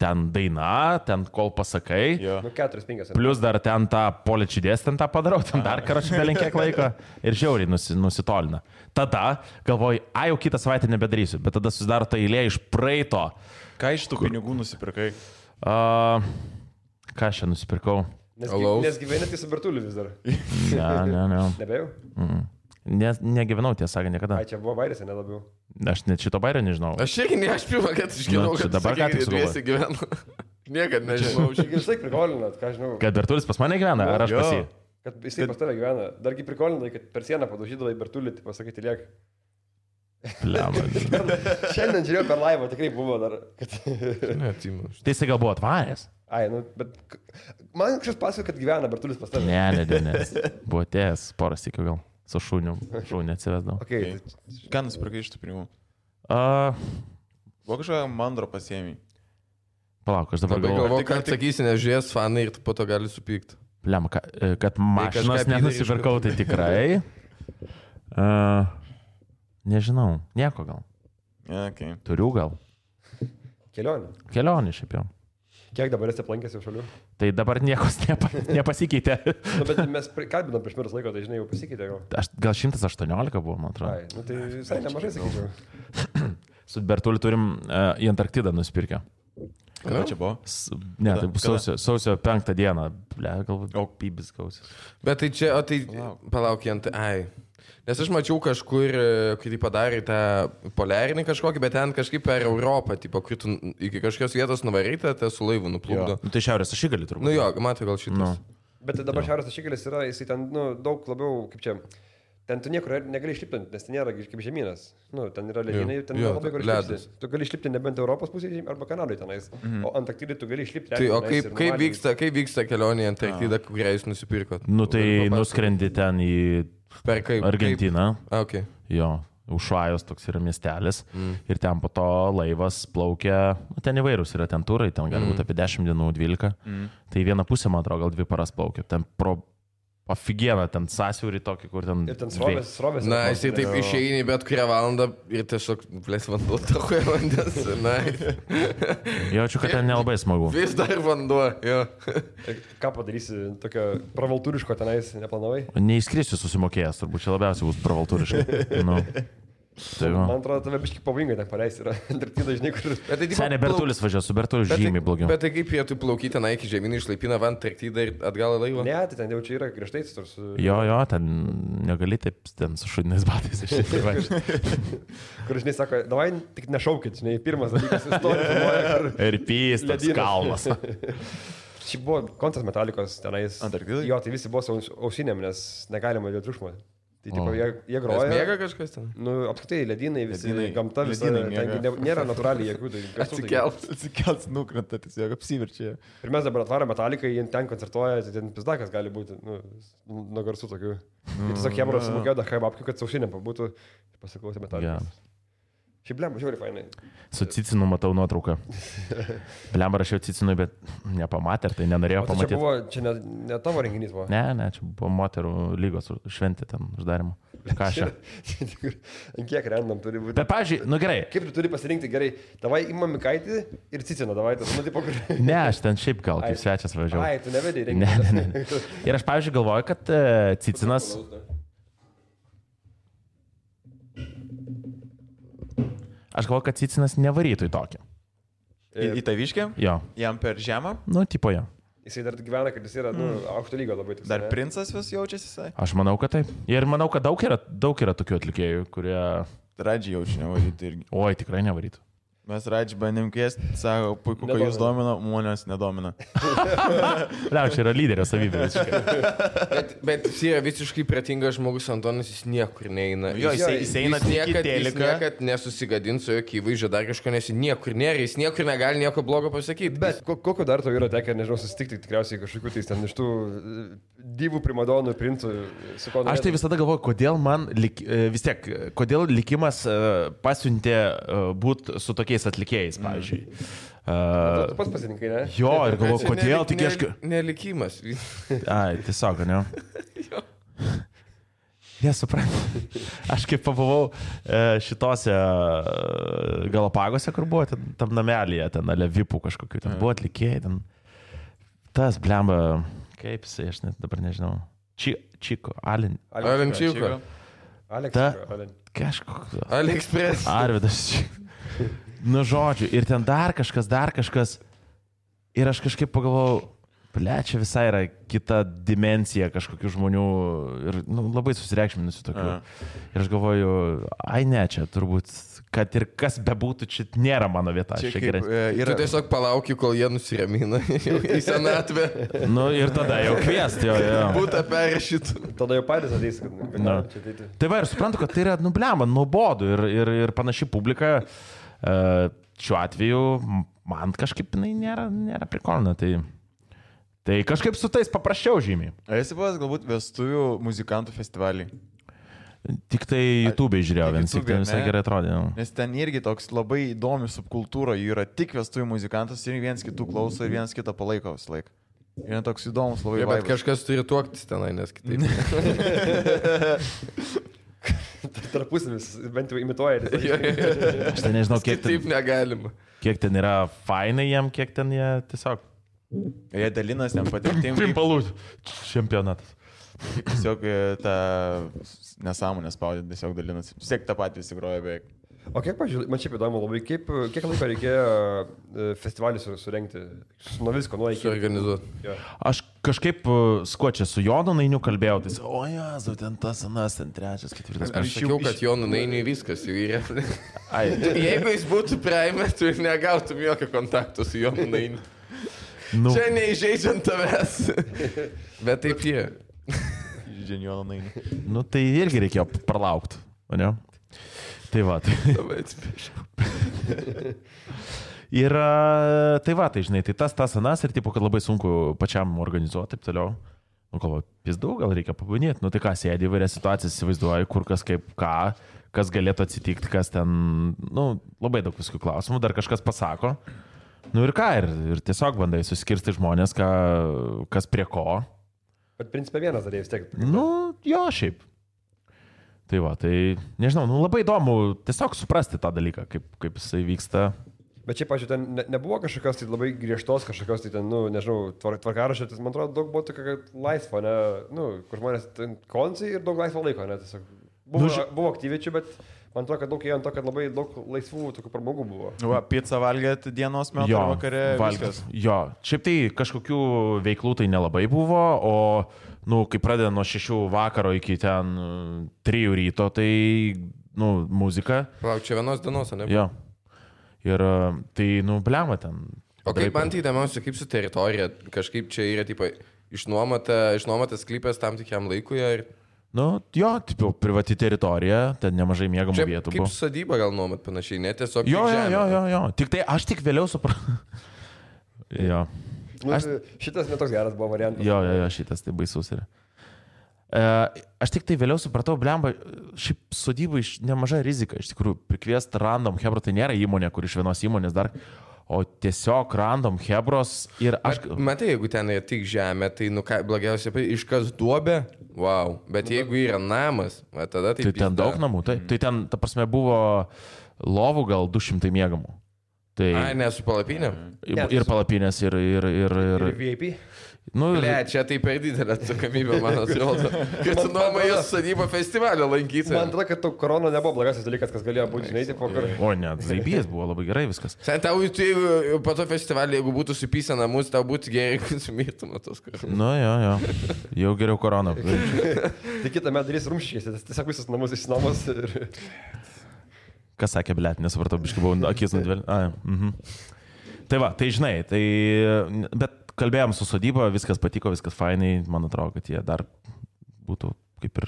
ten daina, ten kol pasakai. 4-5. Plius dar ten tą poličidės, ten tą padarau, ten dar karačiu belinkiek laiko ir žiauriai nusitolina. Tada galvoju, jau kitą savaitę nebedarysiu, bet tada susidaro ta eilė iš praeito. Ką iš tų pinigų nusipirkai? Ką aš čia nusipirkau? Nes gyvenate su Bertuliu vis dar. Ne. Nebejau? Negyvenau, tiesą sakant, niekada. Ai, čia buvo Bairis, ne labiau. Aš net šito Bairio nežinau. Aš irgi ne, aš pirmą, kad išgyvenau, kad dabar ką tik dviesi gyvenu. Niekad nežinau. Aš vis laik prikolinat, ką žinau. Kad Bertulis pas mane gyvena, ar aš pas jį? Kad jisai pas tave gyvena. Dargi prikolinai, kad per sieną padužydavai Bertulį, tai pasakyti liek. Šiandien žiūrėjau per laivą, tikrai buvo dar. Tai jisai gal buvo atvaręs? Ai, bet man kažkas pasako, kad gyvena Bertulis pas tave. Ne. Buvo atėjęs poras tikiu gal. Su šūniu atsivesdavau. Okay. Ką nusipirkai iš tų pinigų? Buvo kažkokia mandro pasiėmė. Palauk, aš dabar galvoju, kad sakysi, nežiūrės fanai ir po to gali supykti. Lemma, kad mašinos nenusipirkau, tai tikrai. Nežinau, nieko gal. Okay. Turiu gal. Kelionė šiaip jau. Kiek dabar esi aplankęs jau šalių? Tai dabar niekos nepasikeitė. Bet mes kalbinam prieš metus laiko, tai žinai, jau pasikeitė gal. Gal 118 buvo, man atrodo. Ai, tai visai nemažai sakyčiau. Su Bertuliu turim į Antarktidą nusipirkę. Kada čia buvo? Ne, tai bus sausio 5 dieną. Galbūt pybis gausis. Bet tai čia, palaukiant, Nes aš mačiau kažkur, kai tai padarė tą poliarinį kažkokį, bet ten kažkaip per Europą, tipo, kai tu iki kažkokios vietos nuvaryta, tai su laivu nuplukdo. Tai Šiaurės ašigalį turbūt. Matai gal šitas. Bet dabar Šiaurės ašigalis yra, jisai ten, daug labiau, kaip čia, ten tu niekur negali išlipti, nes ten nėra kaip žemynas. Ten yra ledynai, ten labai gali išlipti. Tu gali išlipti nebent Europos pusėje arba Kanadai tenais, o Antarktidai tu gali išlipti. Tai o kaip vyksta kelionė į Antarktidą, kurią jūs nusipirkot? Tai nuskrendi ten į Argentiną. Okay. Jo, Ušajos toks yra miestelis. Ir ten po to laivas plaukia, ten įvairūs yra ten turai, ten gali būti apie 10 dienų, 12. Tai vieną pusę, man atrodo, gal 2 paras plaukia. Ten pro Pafigiena ten sąsiaurį tokį, kur ten... Ir ten srovės. Na, jisai taip išeini bet kurią valandą ir tiesiog, blės, vanduo takoja vandens. Na. Jaučiu, kad ten nelabai smagu. Vis dar vanduo, jo. Ką padarysi, tokio pravaltūriško tenais neplanavai? Neįskrisiu susimokėjęs, turbūt čia labiausiai bus pravaltūriškai. Nu. Tai Man atrodo, tave biškai pavojingai ten paleisti yra. Antarktida, žinai, kur... Senė Bertulis važiuoja, su Bertuliu žymiai blogiau. Bet tai kaip jie tu plaukyti tenai iki žemynų išlaipina van Antarktidą ir atgal į laivą? Ne, tai ten jau čia yra griežtai su... Jo, ten negali taip ten su šudiniais batais išsivažiuoti. Kur, žinai, sako, davai tik nešaukit, žinai, pirmas dalykas istorija. Ir pys, tas kalnas. Šiaip buvo koncas Metalikos tenais. Antarktidai? Jo, tai visi buvo su ausinėm, nes negalima dėl triukšmo. Tai tipo, jie groja. Mėga kažkas ten? Nu, apskritai, ledynai, visi, Ledynai. gamta visa, nėra natūraliai jėgų. Tai Atsikels, nukrenta, tiesiog apsiverčia. ir mes dabar atvarom Metaliką, jie ten koncertuoja, tai ten pizdakas gali būti, nuo garsų tokių. Ir tiesiog jiem sumokėjo dar babkių, kad saušinėm pabūtų ir pasiklausė Metalikos. Šiaip blemba, žiūri, fainai. Su Cicinu matau nuotrauką. Blemba rašiau Cicinui, bet nepamatė, tai nenorėjau pamatyti. Čia ne tavo renginys buvo. Ne, čia buvo moterų lygos šventė ten uždarimo. Ką aš? Ant kiek random turi būti. Bet, pavyzdžiui, nu gerai. Kaip tu turi pasirinkti gerai? Davai imam Mikaitį ir Ciciną, davai tas, nu, tipo, kur... Ne, aš ten šiaip gal kaip svečias važiavau. Ai, tu nevedai renginį. Ne. Ir aš, pavyzdžiui, galvoju, kad Cicinas... Aš galvoju, kad Cicinas nevarytų į tokį. Į taviškę? Jo. Jam per žemą? Nu, tipo jo. Jisai dar gyvena, kad jis yra, aukšto lygio labai tik. Dar princas vis jaučiasi jisai? Aš manau, kad taip. Ir manau, kad daug yra tokių atlikėjų, kurie... Radžiai jaučiu nevarytų irgi. Oi, tikrai nevarytų. Mes Radžiai bandėm kviesti, sako, puiku, kad jūs domina, manęs nedomina. Čia yra lyderio savybė. Bet jis yra visiškai pratingas žmogus, Antonas, jis niekur neina. Jo, jis eina tik į Jis teliką. niekad nesusigadins su jokiai įvaizdžio dar kažko, nes jis niekur nėra, jis niekur negali nieko blogo pasakyti. Bet kokio dar to yra tekę, nežinau, susitikti tikriausiai kažkokiu tai ten iš tų divų primadonų, princų, su ko... Aš tai visada galvoju, kodėl man vis tiek, kodėl likimas pasiuntė būti su tokiais atlikėjais, pavyzdžiui. Tu pats pasirinkai, ne? Jo, ir galvoju, kodėl tik aš... Nelikimas. Ai, tiesiog, ne? Nesuprantu. Aš kaip pabuvau šitose Galapagose, kur buvo, tam namelyje, ten Alevipų kažkokiu, ten buvo atlikėjai, ten tas blemba, kaip jisai, aš net dabar nežinau. Čiko, Alin. Alenčiko. Kažkoks. Aliexpress. Arvidas Čiko. Nu, žodžiu, ir ten dar kažkas. Ir aš kažkaip pagalvojau, čia visai yra kita dimensija kažkokių žmonių ir labai susireikšminusių tokių. Ir aš galvoju, ai ne, čia turbūt, kad ir kas bebūtų, čia nėra mano vieta. Tu tiesiog palauki, kol jie nusiramina į senatvę. Nu, ir tada jau kviesti, jo. Būtų perrašytų. Tada jau patys ateis, kad čia ateiti. Tai va, ir suprantu, kad tai yra nublema, nuobodu ir panaši publika. Šiuo atveju man kažkaip jinai nėra prikolina, tai kažkaip su tais paprasčiau žymiai. Ar esi buvęs galbūt vestuvių muzikantų festivalį? Tik tai YouTube žiūrėjau, vienas tik ten visai gerai atrodė. Nes ten irgi toks labai įdomi subkultūra, jų yra tik vestuvių muzikantas ir vienas kitų klauso ir vienas kitą palaiko visą laiką. Ir toks įdomus labai vaibas. Bet kažkas turi tuoktis tenai, nes kitaip. Tarpusimis, bent jau imituoja. Aš ten nežinau, Taip negalima. Kiek ten yra fainai jam, kiek ten jie tiesiog... Jie dalinas ten patirtim. Pimpalų čempionatas. Tiesiog tą nesąmonę spaudė, tiesiog dalinasi. Tiesiog tą patį visi groja beveik. O kiek, pažiūrėjau, man šiaip įdomu labai, kiek laiko reikėjo festivalį surengti? Nuo visko, nuo iki. Suorganizuoti. Ja. Aš kažkaip skuočią su Jonu Nainiu kalbėjau, tai o Jezu, ten tas, anas, ten trečias, ketvirtas. Aš sakiau, kad Jonu Nainiui viskas jau yra. Jeigu jis būtų praeimė, tu ir negautum jokio kontakto su Jonu Nainiu. Nu. Čia neįžeidžiant tavęs. Bet taip jie. Žydžiant Joną Nainį. Nu tai irgi reikėjo pralaukti, o ne? Tai va, tai. Labai atsiprašau. Ir tai va, tai žinai, tai tas anas ir tipo, kad labai sunku pačiam organizuoti, taip toliau. Nu, galvoju, pizdu, gal reikia pabūnėti. Nu, tai ką, sėdi įvairias situacijas, įsivaizduoju, kur kas kaip ką, kas galėtų atsitikti, kas ten, nu, labai daug visokių klausimų, dar kažkas pasako. Nu ir ką, ir tiesiog bandai suskirsti žmonės, kas prie ko. Bet principė vienas darė vis tiek. Nu, jo, šiaip. Tai va, tai nežinau, nu labai įdomu tiesiog suprasti tą dalyką, kaip jisai vyksta. Bet čia, pažiūrėjau, ten nebuvo kažkokios tai labai griežtos, kažkokios tai ten, nu, nežinau, tvarkaraščio, man atrodo, daug buvo tokio laisvo, ne, nu, kur žmonės ten koncai ir daug laisvo laiko, ne, tiesiog. Buvo aktyvičių, bet man atrodo, kad daug ėjo ant to, kad labai daug laisvų tokių pramogų buvo. Va, pizzą valgėt dienos metu ar vakare. Valgęs. Jo, šiaip tai kažkokių veiklų tai nelabai buvo, o, nu, kai pradeda nuo 6 vakaro iki ten 3 ryto, tai, nu, muzika. Lauk, čia vienos dienos, ne? Jo. Ir tai, nu, blema ten. O kaip man tai įdomiausia, kaip su teritorija, kažkaip čia yra, tipo, išnuomotas sklypas tam tikiam laikui ir... Nu, jo, tipo, privati teritorija, ten nemažai miegamų vietų buvo. Kaip sodyba gal nuomat panašiai, ne tiesiog... Jo. Tik tai aš tik vėliau supratau. Jo. Nu, šitas netoks geras buvo variantas. Jo, šitas tai baisus yra. Aš tik tai vėliau supratau, blemba, šiaip sodybai nemaža rizika, iš tikrųjų, prikviesti random hebro, tai nėra įmonė, kur iš vienos įmonės dar, o tiesiog random hebros ir aš... Matai, jeigu ten yra tik žemė, tai, nu, ką, blogiausia, iškas duobė, wow, bet jeigu yra namas, va, tada tai... Tai ten daug namų, tai ten, ta prasme, buvo lovų gal 200 miegamų. Tai... Ai, ne, su palapinėm? Ir palapinės, ir VIP? Nu, Ble, čia tai per didelė atsakomybė, man atrodo. Kad tu nuomojas sodybą festivalio lankyti. Man atrodo, kad korona nebuvo blogasis dalykas, kas galėjo būti, žinai, tipo, kur... O, ne, zaibijas buvo labai gerai viskas. Sen, tau, po to festivalį, jeigu būtų supysę namus, tau būtų gerai, kad sumirtum tos koronos. Nu, jo. Jau geriau korona. Tai kitą metą darys rumščiais, tiesiog visus namus išsinuomos ir... Kas sakė, blėt, nesupratau, biškai buvau akis nudvėl. Tai va, tai žinai, tai... Bet kalbėjom su sodyba, viskas patiko, viskas fainai, man atrodo, kad jie dar būtų kaip ir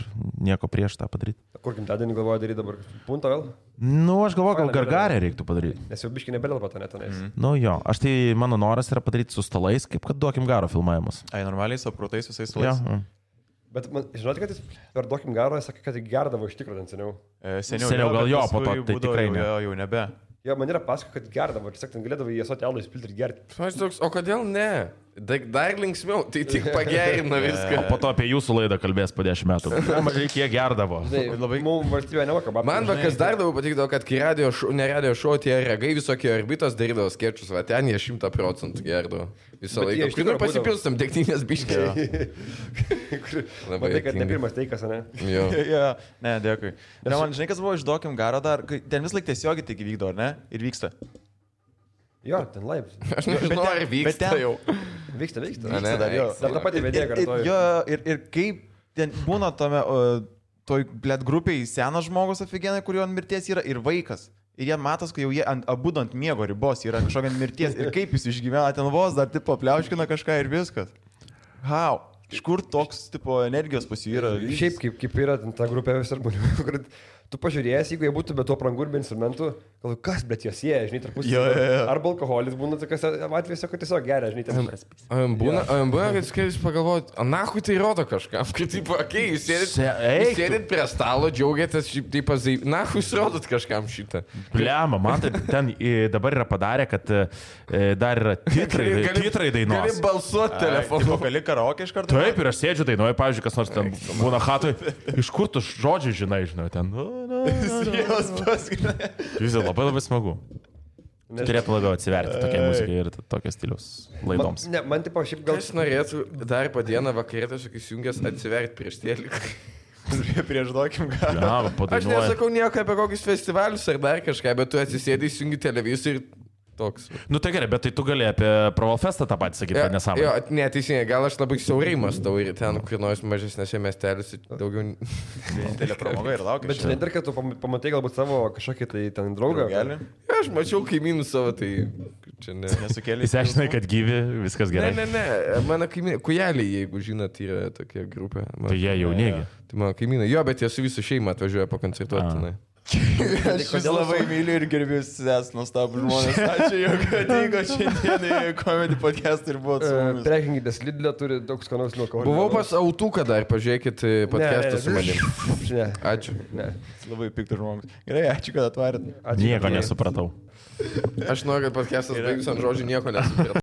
nieko prieš tą padaryti. Kur gimtadienį galvoja daryti dabar? Punto vėl? Nu, aš galvoju, gal gargarę reiktų padaryti. Nes jau biškai nebelėlpa to netenais. Nu jo, aš tai mano noras yra padaryti su stalais, kaip kad duokim garo filmavimas. Ai, normaliai su apkrautais visais stalais. Ja. Bet man, žinote, kad jis per duokim garo, jis sakė, kad jį gerdavo iš tikrųjų ten seniau. Seniau gal jo, po to tai tikrai ne. Jau nebe. Jo, man yra pasako, kad gerdavo, ir sakė, ten galėdavo į esotį alų įspilti ir gerti. O kodėl ne? Dar linksmiau, tai tik pagerina viską. O po to apie jūsų laidą kalbės po 10 metų. Mažai kiek gerdavo. Labai mums valstybė nemoka. Man kas dar labiau patikdavo, kad kai ne radio šou, tie regai visokie orbitos darydavo skečus, va ten jie 100% gerdavo. Visą laiką. Kur pasipilstam degtinės biškį. Matai, kad ne pirmas teikas, ne? Jo. Ne, dėkui. Ne, man žinai, kas buvo išduokim garo dar, ten vis laik tiesiogiai tik vykdo, ar ne? Ir vyksta. Jo, ten laip. Aš nežinau, ar vyksta jau. Vyksta. Vyksta dar, jo. Dar tą patį vedėją kartuoju. Jo, ir kaip ten būna tome, toj, blėt, grupiai senas žmogus aфиgenai, kurio ant mirties yra, ir vaikas. Ir jie matos, kad jau jie abudu ant miego ribos yra kažkokia mirties. Ir kaip jis išgyvena, ten vos dar tipo pliauškina kažką ir viskas. How? Iš kur toks tipo energijos pas jų yra? Šiaip kaip yra ta grupė visur žmonių, kur tu pažiūrėjęs, jeigu jie būtų be to aprangų ir be instrumentų, galvoju, kas, bet jos jie, žinai, tarpusavy. Arba alkoholis būna tokiuose atvejuose, kad tiesiog geria, žinai, ten. Būna, kad skaitis pagalvoti, nahui tai rodo kažkam, kad taip, okei, jūs sėdit prie stalo, džiaugiatės, taip pazai, nahui jūs rodot kažkam šitą. Pliama, man tai ten dabar yra padarę, kad dar yra titrai dainuos. Gali balsuoti telefonu. Gali karaoke iš karto? Taip, ir aš sėdžiu dainuoju, pavyzdžiui, kas nors ten būna hatui, iš kur tu žodžiai žinai, ten. Vis labai labai smagu. Turėtų labiau atsiverti tokia muzika ir tokio stiliaus laidoms. Ne, man tipo šiaip gal... Aš norėčiau dar po dieną vakarė tiesiog įsijungęs atsiverti prieš tėlį. Prieš duokim ką. Aš nesakau nieko apie kokius festivalius ar dar kažką, bet tu atsisėdai, įsijungi televizorių ir toks. Nu tai gerai, bet tai tu gali apie Provalfestą tą patį sakyti, kad nesąmonė. Jo, neteisingai, gal aš labai siaurai mąstau ir ten, kur nors mažesnėse miesteliuose daugiau... Vienintelė pramoga ir laukia. Bet žinai, dar kad tu pamatai galbūt savo kažkokį tai ten draugą. Aš mačiau kaimynų savo, tai čia nesukėlė. Jis aiškinai, kad gyvi, viskas gerai. Ne, mano kaimynai, kujeliai, jeigu žinot, yra tokia grupė. Tai jie jaunėgi. Tai mano kaimynai, jo, bet jie su visų šeima atvažiuoja pakoncertuoti. Aš labai myliu ir gerbiu ses nuostabų žmonės. Ačiū, jog atvyko šiandien į Comedy Podcast ir buvo su mumis. Prekinkitės Lidl'e turi daug skanaus nuo alkoholio. Buvau pas Autuką dar, pažiūrėkit podcastą su manim. Ačiū. Labai piktas žmogus. Gerai, ačiū, kad atvarėt. Nieko nesupratau. Aš noriu, kad podcastas baigus ant žodžių nieko nesupratau.